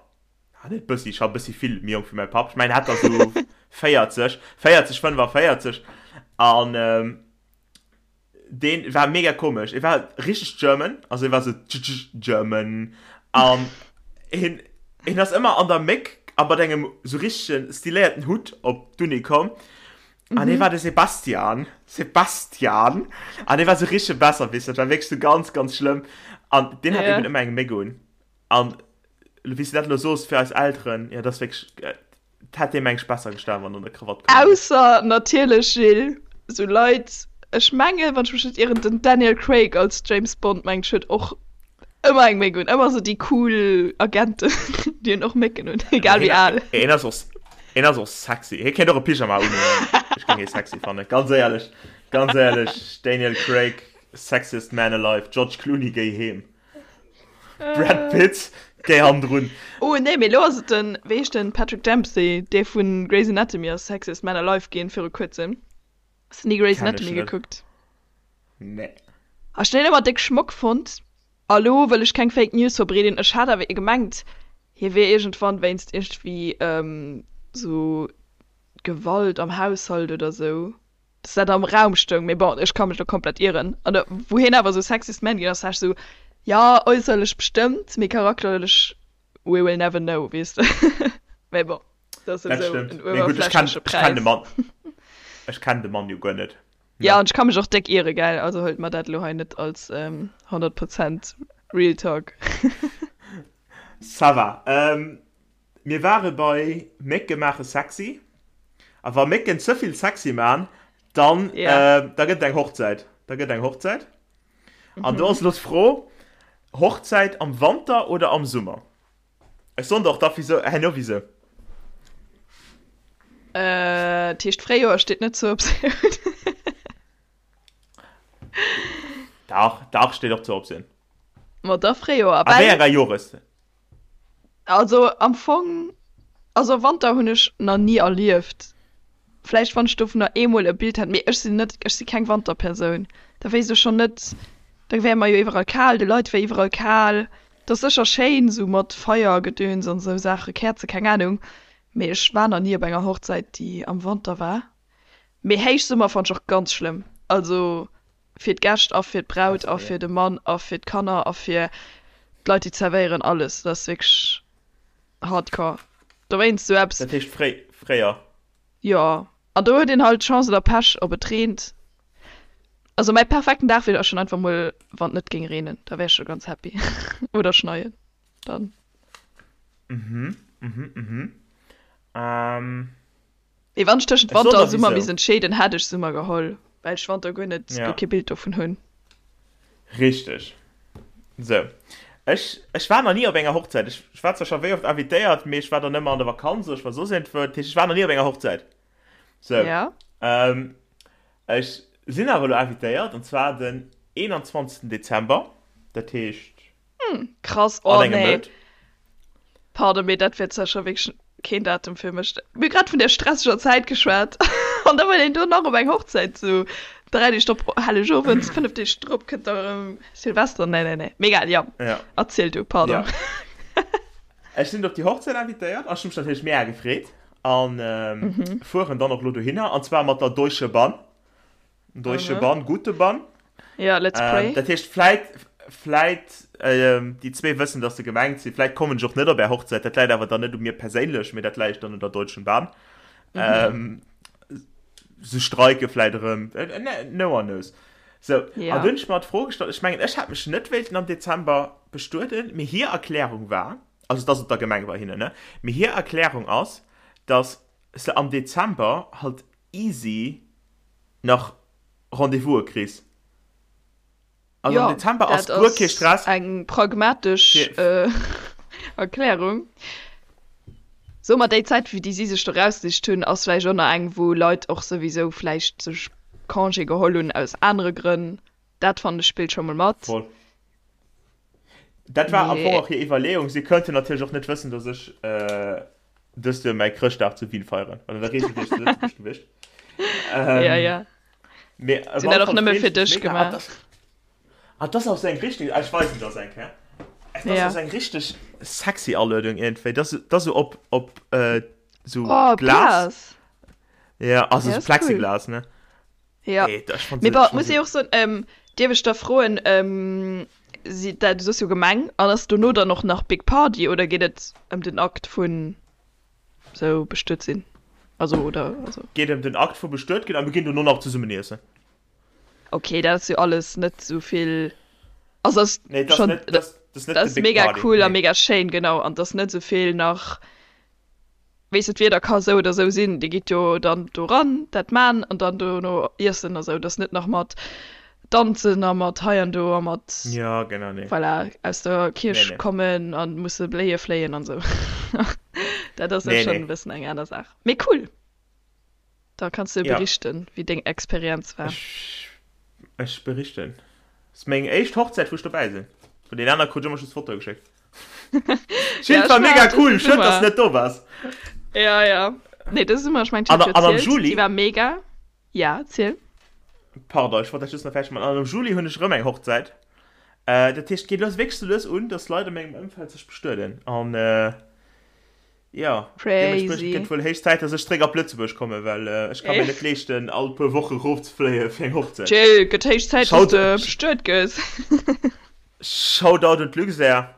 Ah, net bëssi, scho bëssi vill méi jonk wéi mäi Papp. Ech mengen, hat der sou 40, 40, 45. An ähm, deen war mega komesch. E war richteg German, also e war sou German. An hien, hien ass ëmmer an der Méck a mat engem sou richtegen stiléierten Hutt op d'Uni komm. An hie war de Sebastian. Sebastian! An hie war sou richtege Besserwisser. Dat war wierklech sou ganz, ganz schlëmm. An deen hat eben ëmmer eng Méck un. An wéi s de dat elo soos fir eis Elteren, jo, dat ass wierklech, 't hätt deem eng besser gestan, wann en der Krawatt komm wier. Ausser natierlech, Gilles, sou Leit, ech mengen, wann ech mech net ieren, den Daniel Craig als James Bond, mengt ech, huet och ëmmer eng Méck un. Ëmmer sou déi cool Agenten, déi hunn och Mécken un, egal wéi al. Hien ass och, hien ass och sexy. Hie kéint och e Pyjama unhunn. Ech géing hie sexy fannen, ganz éierlech, ganz éierlech, Daniel Craig, sexiest man alive, George Clooney, géi heem. Brad Pitt, géi hannendrun. Oh nee, mee elo ass et den, wéi heescht den, Patrick Dempsey, dee vu Grey's Anatomy ass Sexiest Man Alive ginn viru kuerzem. Has de ni Grey's Kenn ech Anatomy net. gekuckt? Nee. Ech hun deen ëmmer déck Schmock fonnt. A lo wëll ech keng Fake News verbreeden, ech hat awer gemengt hie wier iergendwann wéinst iergendwéi sou Gewalt am Haushalt oder sou dass dat am Raum stoung, mee bon, ech ka mech do komplett ieren. An da wou hien awer esou Sexiest Man ginn ass, war ech esou, jo, äusserlech bestëmmt, mee charakterlech, we will never know, weess de. Mee bon, dat ass Dat souwisou stëmmt. en Mee gutt, ech kenn, uewerflächleche ech kenn de Präis. Mann, ech kenn de Mann jo guer net, Ja, ne? an ech ka mech och déck iere, gell, also huelt mer dat elo hei net als 100 Prozent Real Talk. Ça va. Mir ware bei Mécke maache sexy. A wa Mécken ze vill sexy man, dann, Ja. da gëtt et eng Hochzäit. Da gëtt eng Hochzäit. An do ass elo d'Fro, Hochzäit am Wanter oder am Summer? Ech soen der och da wisou, herno wisou. Dat heescht, Fréijoer steet net zur Optioun. Dach, dach, steet och zur Optioun. Ma da Fréijoer. A wéi enger Jores? Also am Fong, also Wanter hunn ech nach ni erlieft. Vläicht wann ech dovunner eemol e Bild hätt, mee ech sinn net, ech si keng Wanterpersoun. Da wéisst ech schonn net, da wär mer jo iwwerall kal, de Leit wär iwwerall kal. Et ass sécher schéin esou mat Feiergedöns an esou Saache, Käerze, keng Ahnung, mee ech war nach ni op enger Hochzäit déi am Wanter war. Mee Héichsummer fannt ech och ganz schlëmm, also Fir d'Gäscht a fir d'Braut a fir de Mann a fir d'Kanner a fir d'Leit déi zerwéieren, alles. Dat ass wierklech hardcore. Dowéinst sou eppes. Dat heescht fréi, fréier? Jo, an do huet een halt Chance oder Pech ob et reent. Also mäi perfekten Dag wier schonn einfach mol wann et net géing reenen, da wär ech scho ganz happy. Oder schneien dann. Mhm, mhm, mhm. Ähm. Mee wann ech tëschent Ech soen Wanter a der Summer wisou. misst entscheeden, hätt ech Summer geholl, well ech Wanter guer net, guer Ja. kee Bild dovun hunn. Richteg. Sou. Ech, ech war nach ni op enger Hochzäit. Ech, ech war zwar scho wéi oft invitéiert, mee ech war dann ëmmer an der Vakanz oder ech war soss iergendwou. Dat heescht, ech war nach ni op enger Hochzäit. Sou. Ja. Ähm, ech sinn awer elo invitéiert, an zwar den 21. Dezember. Dat heescht. Krass, An oh engem nee. Mount. Pardon, mee dat wär zwar scho wierklech keen Datum fir mech. Mir hu grad vun där stresseger Zäit geschwat an da wëll een do nach op eng Hochzäit, sou 3 Deeg drop Hellegowend, 5 Deeg drop kënnt da erëm Silvester. Nee, nee, nee. Mee egal, jo, Ja. erziel du, pardon. Ja. Ech sinn op déi Hochzäit invitéiert an ech hu mech natierlech mega gefreet an fueren dann och elo dohinner an zwar mat der Deutsche Bahn. Deutsche Bahn, gute Bahn. Ja, let's pray. Ähm, dat heescht, vläit, vläit, ähm, déi zwee wëssen, dass se gemengt sinn. Vläit kommen ech och net op är Hochzäit. Dat läit awer dann net u mir perséinlech, mee dat läit dann un der Deutschen Bahn. Mhm. Ähm, se streike vläit erëm. Äh, ne, no one knows. So, Ja. an dunn ech mer d'Fro gestallt, ech mengen, ech hätt mech net wéilten am Dezember bestueden, mee hir Erklärung war, also dass et der Gemeng bei hinnen, ne, mee hir Erklärung ass, dass se am Dezember halt easy nach Rendez-vouse kriss. Also am Dezember ass guer kee Stress. Eng pragmatesch Erklärung. Soe mer, déi Zäit, wéi déi si sech do rausgesicht hunn, ass vläicht och nach eng, wou Leit och souwisou vläicht sech Congé geholl hunn aus anere Grënn. Dat fannen ech spillt scho mol mat. Voll. Dat war am Fong och hir Iwwerleeung. Si kënnten natierlech och net wëssen, datt ech dëst Joer mäi Chrëschtdag zu Wien feieren. Well an der Reegel wier ech zu Lëtzebuerg gewiescht. Ja, ja. Mee Si hunn dat och nëmme fir dech gemaach. Ah, das ass eng richtig, ah, ech weisen das eng Kéier. Das Ja. ass eng richtig sexy Aluedung iergendwéi. Das, das so op, op äh, so Oh, Glas. Glas. Ja, also Ja, so ist cool. Plexiglas, ne? Ja. Ey, das, ich fand Mee se, bon, ich fand muss se, ich och soen, ähm, dierf ech da froen, ähm, si, dat, du soss jo Gemeng, an ass dono dann och nach Big Party oder geet et ëm den Akt vun sou bestuet sinn? Also, oder, also. Geet ëm den Akt vu bestuet ginn a mir ginn dono nach zesummen iessen. Ok, dat ass jo alles net sou vill, also ass Nee, dat ass schon, net, dat ass, dat ass net dat de ass Big mega Party, cool a nee. mega schéin, genau, an 't ass net sou vill nach, weess de, d'Wieder ka sou oder sou sinn, dir gitt jo dann do ran, dat man an dann dono iessen a sou, 't ass net nach mat danzen a mat hei an do a mat, Ja, genau, nee. voilà, aus der Nee, Kierch nee. kommen a musse Bléie fléien an sou. Dat ass jo Nee, schon nee. e bëssen eng aner Saach, mee cool. Da kanns du Ja. berichten, wéi deng Experienz war. Ech, ech berichten. Ass meng éischt Hochzäit, wou ech dobäi sinn. Vun den aner krut ech ëmmer just Fotoe geschéckt. Ja, Jill, war ech mega war dëse cool, schued, dass Summer. du net do waars. Ja, ja. Nee, dëse Summer, ech mengen, ech An, hat jo an am erzielt, Juli, déi war mega. Ja, erziel. pardon, ech wollt dat just nach fäerdeg maachen. An am Juli hunn ech erëm eng Hochzäit. Äh, dat heescht, et geet lues wierklech sou lues un, dass Leit a mengem Ëmfeld sech bestueden. An, äh, Jo, deementspriechend Crazy. gëtt wuel héich Zäit, dass ech zréck op Lëtzebuerg kommen, well ech ka mir net leeschten, all puer Woche rofzefléie fir eng Hochzäit. Jill, gëtt héich Zäit, dass Shout, de bestuet gëss. Shoutout un d'Luxair.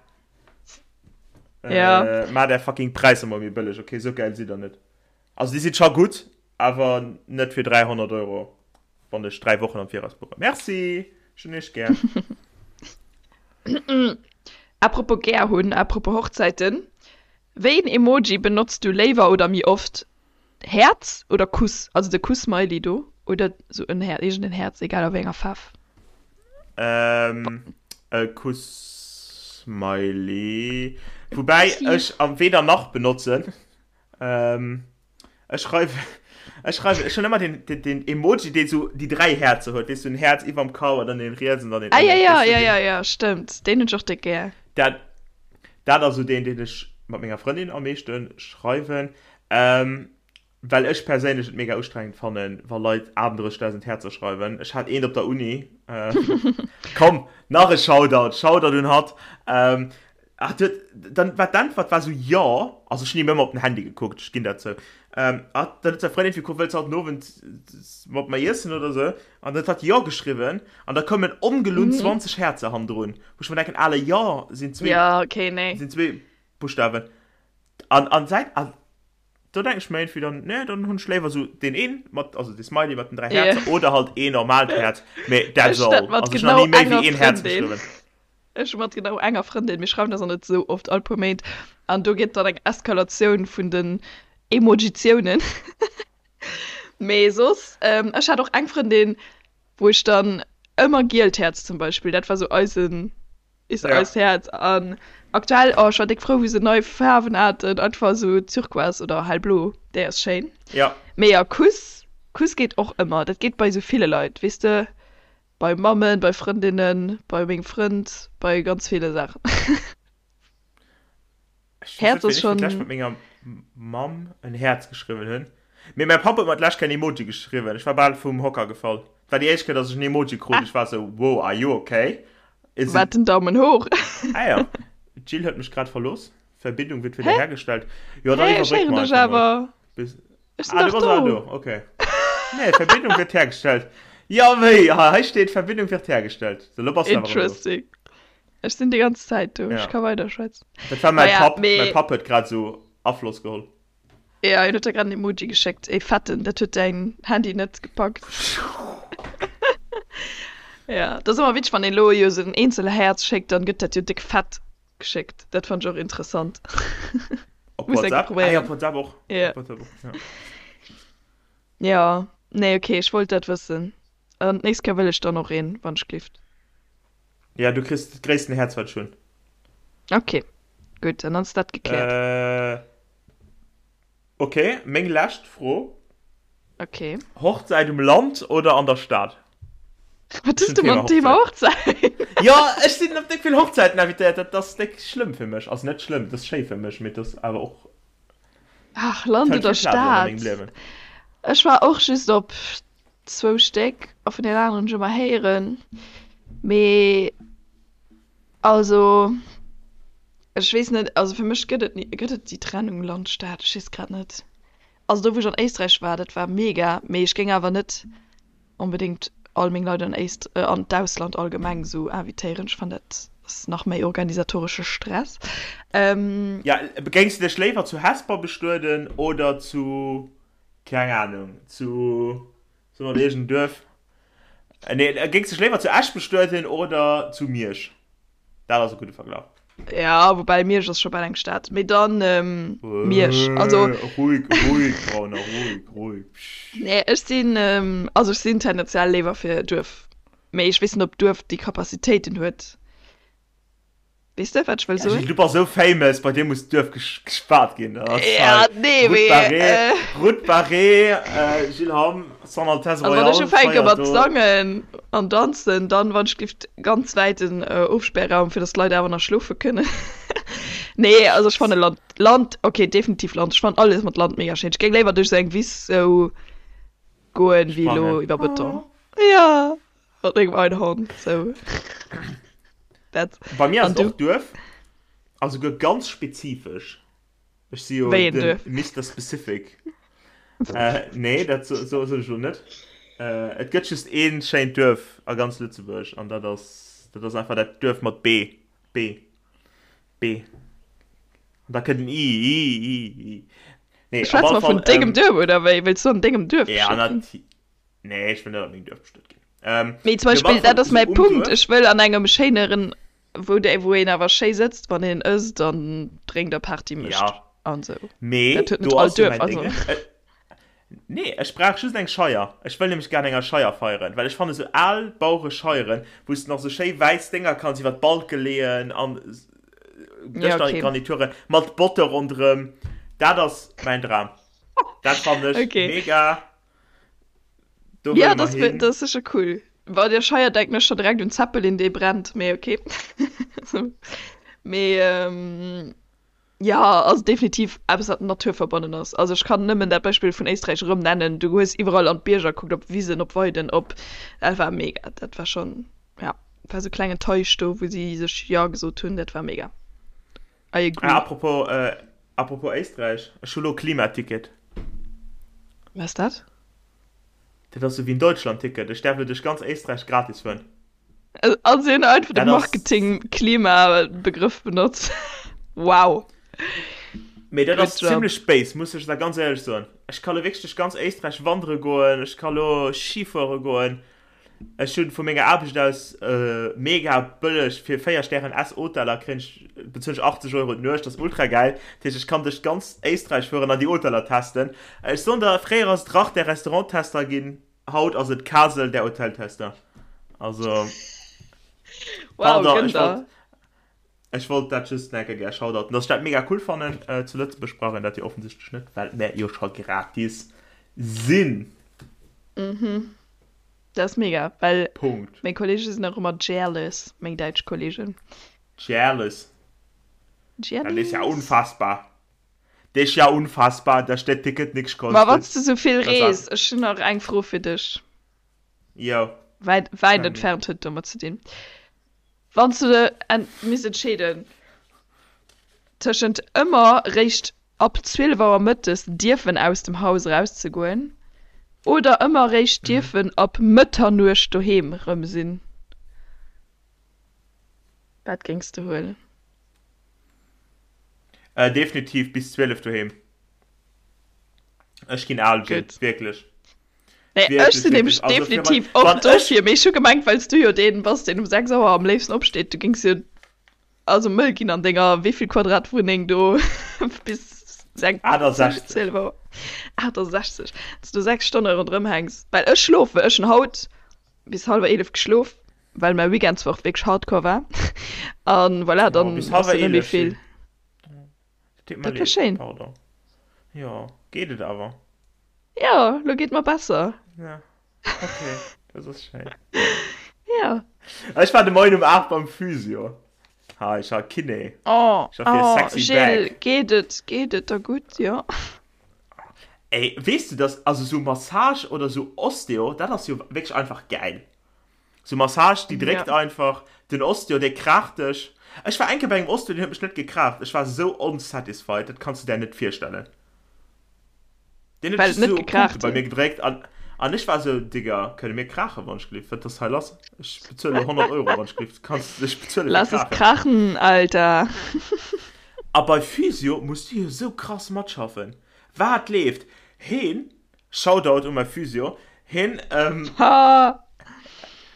Ja. Maacht är fucking Präisser mol méi bëlleg, ok? Sou gäil sidd der net. Also déi si scho gutt, awer net fir 300 Euro, wann ech 3 Wochen am Viraus buchen. Merci, ech hunn iech gär. Apropos gär hunn, apropos Hochzäiten, Wéi een Emoji benotz du léiwer oder méi oft? Häerz oder Kuss? Also de Kuss-Smiley do oder sou en Häerz, iergend en Häerz, egal a wéi enger Faarf. Ähm, e Kuss-Smiley. Woubäi Kussi. ech am weder nach benotzen. Ähm, ech schreiwen, ech schreiwen, ech hunn ëmmer den, den, den Emoji, deen sou déi 3 Häerzer huet, weess du, en Häerz iwwerm Kau an dann een riets an dann een Ah ja, ënnen, ja, weess du, ja, deen. ja, ja, stëmmt. Deen hunn ech och déck gär. Dat, dat ass sou deen, deen ech mat menger Frëndin am meeschte schreiwen, ähm, well ech perséinlech et mega ustrengend fannen, wa Leit 38.000 Häerzer schreiwen. Ech hat eent op der Uni, äh, komm, nach e Shoutout, Shoutout un hatt, ähm, Hat huet, dann war d'Äntwert war sou jo, also ech hunn him ëmmer op den Handy gekuckt, ech ginn dat zou. Ähm, hat, dann huet säi Frëndin fir wëlls haut den Owend mat mer iessen oder sou, an dann huet hatt jo geschriwwen, an da koumen ongelunn 20 Häerzer hannendrun, wou ech mer denken, ale jo sinn zwee, Ja, okay, nee. sinn zwee Buschtawen. An, an säit, an do denken ech mer iergendwéi dann, nee, dann hunn ech léiwer sou deen een mat, also dee Smiley mat den 3 Yeah. Häerzer oder halt een normaalt Häerz, mee that's Ech dat all. mat Also ech hunn nach genau ni méi enger wéi een Häerz Frëndin. geschriwwen. Ech hu mat genau enger Frëndin, mir schreiwen eis och net esou oft, all puer Méint, an do geet dann eng Eskalatioun vun den Emojitiounen. Mee soss, ech hat och eng Frëndin, wou ech dann ëmmer gielt Häerz zum Beispill, dat war sou eisen, is Ja. eist Häerz. An aktuell, oh, ech war déck frou, wou se nei Faarwen haten, einfach sou turquoise oder hellblo, déi ass schéin. Ja. Mee ja, Kuss, Kuss geet och ëmmer, dat geet bei sou ville Leit, weess de. Bei Mammen, bei Frëndinnen, bei mengem Frënd, bei ganz ville Saachen. Ech weess net, Häerz ass wéini ech fir d'lescht schonn. mat menger Mamm en Häerz geschriwwen hunn. Mee mäi Papp huet mer d'lescht Kéier en Emoji geschriwwen. Ech war bal vum Hocker gefall. Et war déi éischt Kéier, datt ech en Emoji krut. Ech war esou, wow, are you okay? Is it. Wat, den Daumen hoch? Ah ja, d'Jill huet mech grad verlooss. Verbindung wird Hä? wiederhergestellt. Jo, dann Hä, ech iwwerbréck héieren mer dech einfach mol. awer. Bis. Ech sinn Ah, du dach bass awer do. do, okay. Nee, Verbindung wird hergestellt. Ja, wéi? Ha, hei steet Verbindung wird hergestellt. So, lo bass du awer erëm do. Interesting. Ech sinn déi ganz Zäit do. Ech Ja. ka weiderschwätzen. Dat war mäi Naja, Papp. Mäi mee. Papp huet grad esou Afloss geholl. Ja, hien huet der grad en Emoji geschéckt, ee fetten. Dat huet däin Handy net gepackt. Ja, dat ass ëmmer witzeg, wann een elo jo esou en eenzel Häerz schéckt, dann gëtt dat jo déck fett geschéckt. Dat fand ech och interessant. Op Muss eng WhatsApp? Ah ja, probéieren. op WhatsApp och. Ja. Op WhatsApp och, ja. Ja, nee, okay, ech wollt dat wëssen. An d'nächst Kéier wëll ech dann och een, wann ech glift. Ja, du kriss dat gréissten Häerz, wat ech hunn. Ok, gutt, dann ass dat gekläert. Äh, ok, meng lescht Fro. Ok. Hochzäit um Land oder an der Stad? Wat hues du mam Thema Hochzäit? Jo, ech sinn op déck vill Hochzäiten invitéiert. Dat ass déck schlëmm fir mech. Also net schlëmm, dat ass schéi fir mech, mee dat ass awer och. Ach, Land oder Stad? Ech war och just op zwou Stéck a vun den aneren hunn ech ëmmer héieren. Mee also ech weess net, also fir mech gëtt et ni, gëtt et déi Trennung Land-Stad? Ech weess grad net. Also do wou ech an Éisträich war, dat war mega, mee ech géing awer net onbedéngt all meng Leit an Éist an d'Ausland allgemeng esou invitéieren. Ech fannen dat ass nach méi organisatoresche Stress. Ja, géings de dech léiwer zu Hesper bestueden oder zu, keng Ahnung, zu, soe mer iergend en Duerf, nee, géings dech léiwer zu Esch bestueden oder zu Miersch? Dat ass e gudde Verglach. Ja, woubäi Miersch ass scho bal eng Stad. Mee dann Miersch. Also. Ruhig, ruhig, Brauner, ruhig, ruhig. Nee, ech sinn, also ech sinn tendenziell léiwer fir Duerf. Mee ech weess net, ob Duerf déi Capacitéiten huet. Weess de, wat ech wëll soen? Gilles, du bass esou famous, bei dir muss d'Duerf gespaart ginn. Ja, nee, mee. Route Barrée, Route Barrée, Gilles Hamm, Son Altesse Royale. Also wann ech ufänke mat sangen an danzen, dann wann ech giff ganz wäiten Ofsperrraum, fir dass d'Leit awer nach schlofe kënnen. Nee, also ech fanne Land, Land, okay, definitiv Land. Ech fannen alles mat Land mega schéin. Ech géing léiwer duerch esou eng Wiss esou goen, wéi elo iwwer Beton. Ja, mat mengem Einhorn, sou. Dat. Bei mir ass et och Duerf, a souguer ganz spezifesch. Ech si jo den Mister Specific. Nee, dat soen ech elo net. Et gëtt just ee schéint Duerf a ganz Lëtzebuerg an dat ass, dat ass einfach dat Duerf mat B. B. B. An da kënnt en I, I, I, I. Nee, op alle Fall. Schwätze mer vun dengem Duerf oder wéi? Wëlls du an dengem Duerf bestuet ginn? Ja, nati. Nee, ech wëll net an mengem Duerf bestuet ginn. Mee zum Beispill, dat ass mäi Punkt, ech wëll an engem schéineren Wou dei wou een awer schéi sëtzt wann een ësst an drénkt a Party mécht ja. an sou. Mee Dat huet net do all ass jo Duerf mäin also. Déngen. Äh, nee, ech brauch just eng Scheier. Ech wëll nämlech gär an enger Scheier feieren, well ech fanne sou al Bauerescheieren, wou s de nach sou schéi wäiss Dénger kanns iwwer d'Balke leeën an Ja, okay. Dëschgarnituren mat Botte ronderëm, dat ass mäin Dram. Dat fannen ech Okay. mega. Do ja, das, das ist sicher cool. Bei der Scheier denken ech schon direkt un Zeppelin, dee brennt, mee okay. mee ähm, ja, also definitiv eppes wat naturverbonnen ass. Also ech kann nëmmen dat Beispill vun Éisträich erëm nennen. Du hues iwwerall an d'Bierger kuckt, op Wisen, op Weiden, op dat war mega. Dat war schon ja, war sou klengen Teich do, wou si sech ja gesot hunn, dat war mega. I agree. Ah, apropos, äh, apropos Éisträich, ech hu lo Klimaticket. Wat ass dat? Dat ass sou wéi en Deutschlandticket. Ech däerf lo duerch ganz Éisträich gratis fueren. Also si hunn einfach de Marketing-Klima-Begrëff benotzt. Wow. Mee dat ass zimlech béis, muss ech da ganz éierlech soen. Ech ka lo wierklech duerch ganz Éisträich wandere goen, ech ka lo Ski fuere goen. Ech hunn vu menger Aarbecht aus mega bëlleg fir 4 Stären S Hoteller kréien ech bezuelen ech 80 Euro d'Nuecht, dat ass ultra gäil. Dat heescht ech kann duerch ganz Éisträich fueren an déi Hoteller testen. Ech soen der, fréier ass et Rach der Restauranttester ginn, haut ass et Kasel der Hoteltester. Also Wow, pardon, ech wollt, ech wollt dat just nach eng Kéier gär shoutouten, dass ech dat mega cool fannen. Zu Lëtzebuerg brauch een dat jo offensichtlech net, well mär jo scho gratis sinn. Mhm. Dat ass mega, well Punkt. meng Kollege sinn och ëmmer jealous, meng däitsch Kollegen. Jealous. Dat is ja Jealous. unfassbar. Dat is ja unfassbar, dass dat Ticket nix Ma wann kostet. s de sou vill Dat ass rees, ech hunn nach eng Fro fir dech. Jo, Wäit, wäit tell me. entfernt huet domat ze dinn. Wann s de en misst entscheeden tëschent ëmmer réischt ab 12 Auer mëttes dierfen aus dem Haus erauszegoen oder ëmmer réischt dierfen ab Mëtternuecht doheem rëm sinn, wat géings de huelen? Definitiv bis 12 doheem. Ech ginn al, Jill, Gutt. wierklech. Nee, ech sinn nämlech definitiv och dofir, mee ech hu gemengt, well s du jo deen bass, deen um 6 Auer am léifsten opsteet, du géings jo also mëll ginn an denger wéivill Quadrat Wunneng do bis 6, 68. 12 Auer, 68, dass du 6 Stonne ronderëm hänks, well ech schlofen, ech hunn haut bis hallwer 11 geschlof. Well mäi Weekend zwar och wierklech hardcore war. An voilà, dann bis ass hallwer dat net méi 11, vill. Jill. Dat deet mer Dat war leed, schéin. Pardon. Jo, geet et awer? Jo, lo geet mer besser. Ja, okay, dat ass schéin. Ja. Ech war de Moien um 8 beim Physio. Ha, ech hat Kiné. Oh, Ech war fir oh, sexy Jill, back. geet et, geet et der gutt? Jo. Ey, weess du, dass, also sou Massage oder sou Osteo, dat ass jo wierklech einfach gäil. Sou Massage, déi dréckt Ja. einfach, den Osteo, dee kraacht dech. Ech war eng Kéier bei engem Osteo, deen huet mech net gekraacht. Ech war sou unsatisfied, dat kanns du där net virstellen. Deen huet Well et just net sou op Punkte gekraacht bei mir huet. gedréckt an, an ech war sou, Digga, kënne mir kraachen, wann ech gelift? Wat ass hei lass? Ech bezuele 100 Euro, wann ech gelift. Kanns, ech bezuele fir Lass es kraachen. krachen, Alter. A bei Physio muss du jo sou krass matschaffen. Wat leeft? Heen, Shoutout u mäi Physio, heen, ähm, Ha!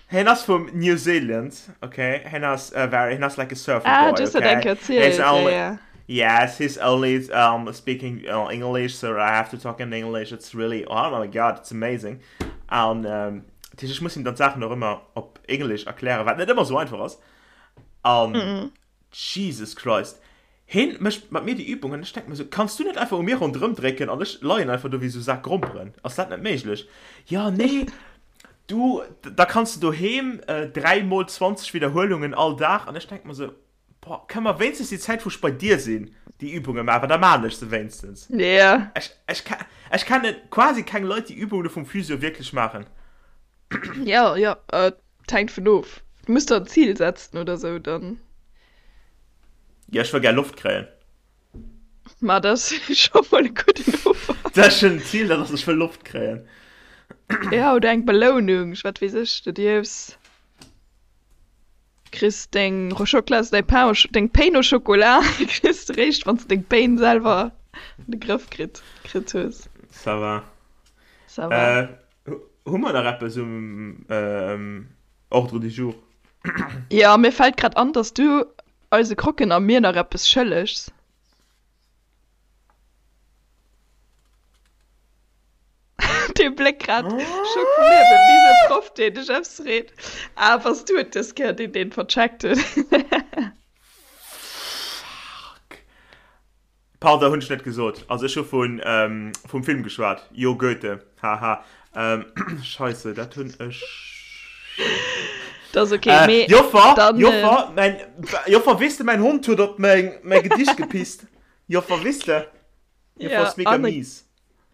heen ass vum New Zealand, okay? Heen ass uh, very, heen ass like a surfer Ah, boy, du hues dat eng okay? Kéier He's erzielt, ja, only, ja. yes, he's only um, speaking uh, English, so I have to talk in English. It's really, oh my god, it's amazing. An ähm, dat heescht, ech muss him dann d'Saachen och ëmmer op Englisch erklären, wat net ëmmer sou einfach ass. An Mhm. Jesus Christ, heen mécht mat mir déi Übung an ech denken mir sou, kanns du net einfach u mir ronderëm drécken an ech leien einfach do wéi sou Sak Gromperen, ass dat net méiglech? Jo, nee, du, da kanns du doheem 3 mol 20 Widderhuelungen all Dag an ech denken mir sou, boah, kënne mer wéinstens déi Zäit wou ech bei dir sinn déi Übunge maachen, well da maan ech se wéinstens. Yeah. Ech, ech, ech kenne quasi keng Leit déi Übunge vum Physio wierklech maachen. Jo, jo, et hänkt vun of. Du muss der en Zil setzen oder sou, dann. Jo, ech wëll gär Loft kréien. Ma dat ass scho mol e gudden Ufank. Dat ass schonn en Zil, dat ass, ech wëll Loft kréien. Ja, oder eng Belounung, wat weess ech, du dierfs, kriss deng Rochoclas, däi Pain au, deng Pain au chocolat kriss de réischt, wann s de deng Pain selwer an de Grëff kritt, kritt hues. Ça va. Ça va. Hu mer nach eppes um Ordre du jour? Jo, mir fält grad an, dass du eise Croquen a mir nach eppes schëllegs. Dee Bléck grad, Schock vum Liewen, wéi esou e Proff, deen dech eppes freet. Ah, bass du et dës Kéier, deen deen vercheckt huet? Fuck. Pardon, hunn ech net gesot. Also ech hu vun vum Film geschwat. Jo, Goethe. Haha. Scheisse, dat hunn ech. Dat ass ok, mee Joffer, dann. Joffer, mäin, Joffer, weess de, mäin Hond huet op meng, mäi Gedicht gepisst. Joffer, weess de? Joffer Ja, ass mega an mies.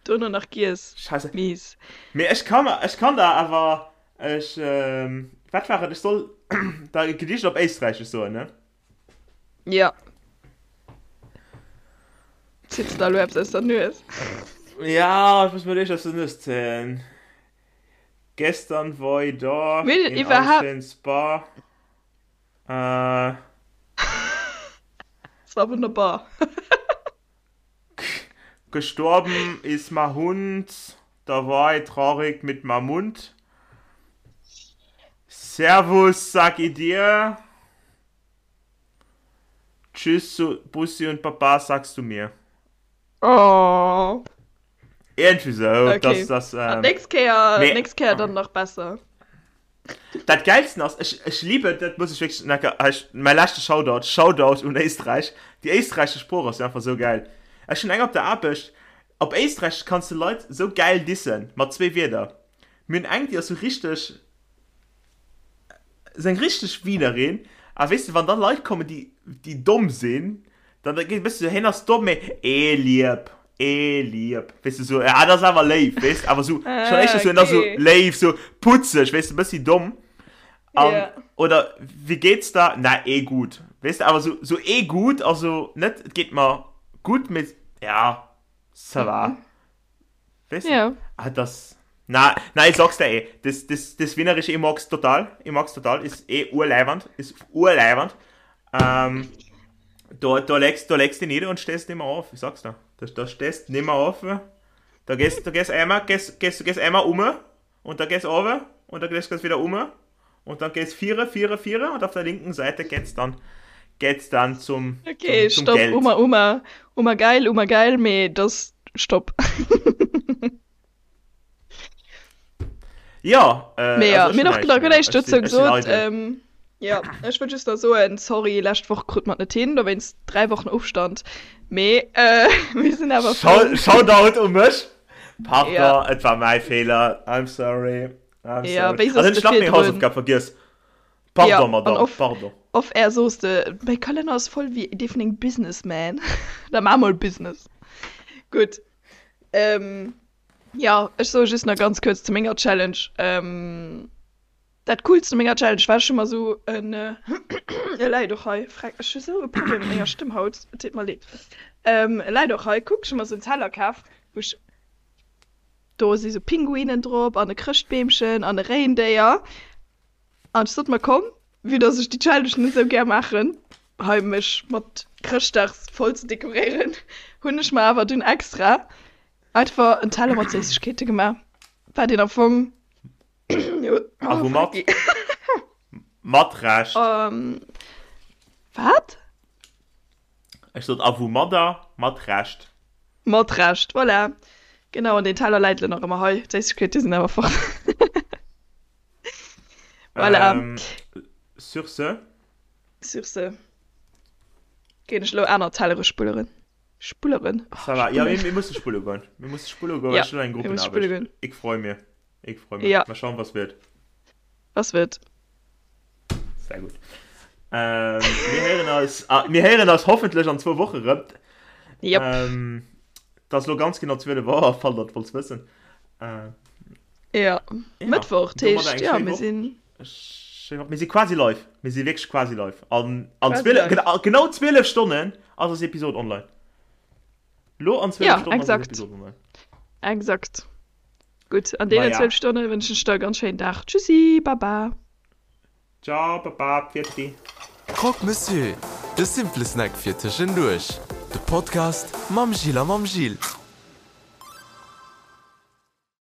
dono nach giess. Scheisse. Mies. Mee ech kann, ech kann der awer, ech, wat war et, ech soll der e Gedicht op Éisträichesch soen, ne? Ja. Zitts der elo eppes aus der Nues? Ja, ech muss mir eréischt aus der Nues zéien. Gestern war ich da Mir in iwwerhaupt. einem schönen Spa. Äh. Es war wunderbar. Gestorben ist ma Hund, da war ich traurig mit ma Mund. Servus, sag ich dir. Tschüss, Bussi und Baba, sagst du mir. Oh. Irgendwie so. Okay. Das, das, ähm, nächst Kéier, nee. nächst Kéier dann nach besser. Dat Geilsten ass, ech, ech liebe, dat muss ich wirklich, na, ech, mein leschte Shoutout, Shoutout un Éisträich. Déi éisträichesch Sprooch ass jo einfach sou geil. Ech hunn eng op der Aarbecht, op Éisträichesch kanns de Leit sou geil dissen, mat zwee Wierder. Mir hunn eng, déi ass sou richteg, sou eng richteg Wienerin, a weess de, wann da Leit kommen, déi, déi domm sinn, dann da geet e bësse sou, hien ass domm, mee eh lieb, eh lieb, weess de, sou, ah, dat ass awer léif, weess de, awer sou, schonn éischter sou, hien ass sou léif, sou putzeg, weess de, e bëssi domm. An, Yeah. oder, Wie geht's da? Na, eh gut. Weess de, awer sou, sou eh gut, also net, et geet mer gutt, mee ja, ça va. Weess de? Ja. Ah, das. Na, na, ich sag's dir eh. Das, das, das Wienerische, ich mag's total. Ich mag's total. Ist eh urleiwand. Ist urleiwand. Ähm, da, da legst, da legst du nieder und stehst nimmer auf. Ich sag's dir. Da, da stehst nimmer auf. Da gehst, da gehst einmal, gehst, gehst, gehst einmal um und da gehst runter und dann gehst du wieder um und dann gehst viere, viere, viere und auf der linken Seite geht's dann, geht's dann zum, Okay, zum, zum stopp, Geld. Uma, Uma, Uma geil, Uma geil, mee das, stopp. Jo, äh, Mee ja, also ech mir hunn hunn och näischt nach guer méi. näischt Ech dozou sinn, ech sinn gesot. eidel. Ähm, jo, ech wëll just nach soen, sorry, lescht Woch krut mer et net hin, dowéinst 3 Wochen Ofstand. Mee äh, mir sinn awer frou. Shout, Shoutout u mech. Ja, Pardon, et war mäi Feeler. I'm sorry. I'm ja, sorry. wéi An soss hunn de ech nach meng virdrun? Hausaufgab vergiess. Ja, Pardon, an Madame, off, pardon. off air soos de, mäi Kalenner ass voll wéi dee vun engem Businessman. Da maa mol Business. Gutt. Ähm, Jo, ech soe just nach ganz kuerz zu menger Challenge. Ähm, dat Coolst u menger Challenge war, ech hu mer esou en, e läit och hei, freck, ech hu sou e Problem mat menger Stëmm haut, et deet mer leed. Ähm, e läit och hei, kuck, ech hu mer esou en Teller kaf, wou ech, do si sou Pinguinen drop an e Chrëschtbeemchen an e Réindéier. An ech sot mer, komm, vue dass ech déi Challenge net esou gär maachen, hei mech mat Chrëschtdags voll ze dekoréieren, hunn ech mer awer dunn extra Einfach en Teller mat Séissegkeete gemaach, wat een am Fong. A woumat? Mat Recht. Wat? Ech sot a woumadder? Mat Recht. Mat Recht, voilà. Genau, an deen Teller läit elo nach ëmmer hei. D'Séissegkeete sinn awer fort. Voilà. Sur ce. Sur ce ginn ech elo aner Tellere spulleren. Spulleren. Oh, Ça va. Ja, mir, mir musse spulle goen. Mir musse spulle goen, Ja, ech hunn eng mir musse spulle Gruppenaarbecht. goen. Ik freu mir. Ik freu mir. Ja. Mal schauen, was wird. Was wird. Sehr gut. Ähm, mir héieren eis, ah, mir héieren eis hoffentlech an zwou Woche rëm. Yep. Ähm, dat ass lo ganz genau 12 Auer, falls der et wollt wëssen. Äh, Ja. ja, Mëttwoch, domadder heescht, eng ja, schéi mir Woch. sinn. Schéi Woch. Mir si quasi live. Mir si wierklech quasi live. An, an Quasi 12, live. genau, genau 12 Stonnen ass eis Episode online. Lo an 12 Ja, Stonnen ass eis exakt. Episode online. Exakt. Gutt, an deenen Maja. 12 Stonne wënschen ech der e ganz schéinen Dag. Tschüssi, baba. Ciao, baba, pfiat-di. Croque Monsieur, de simple Snack fir tëschenduerch. De Podcast mam Gilles a mam Gilles.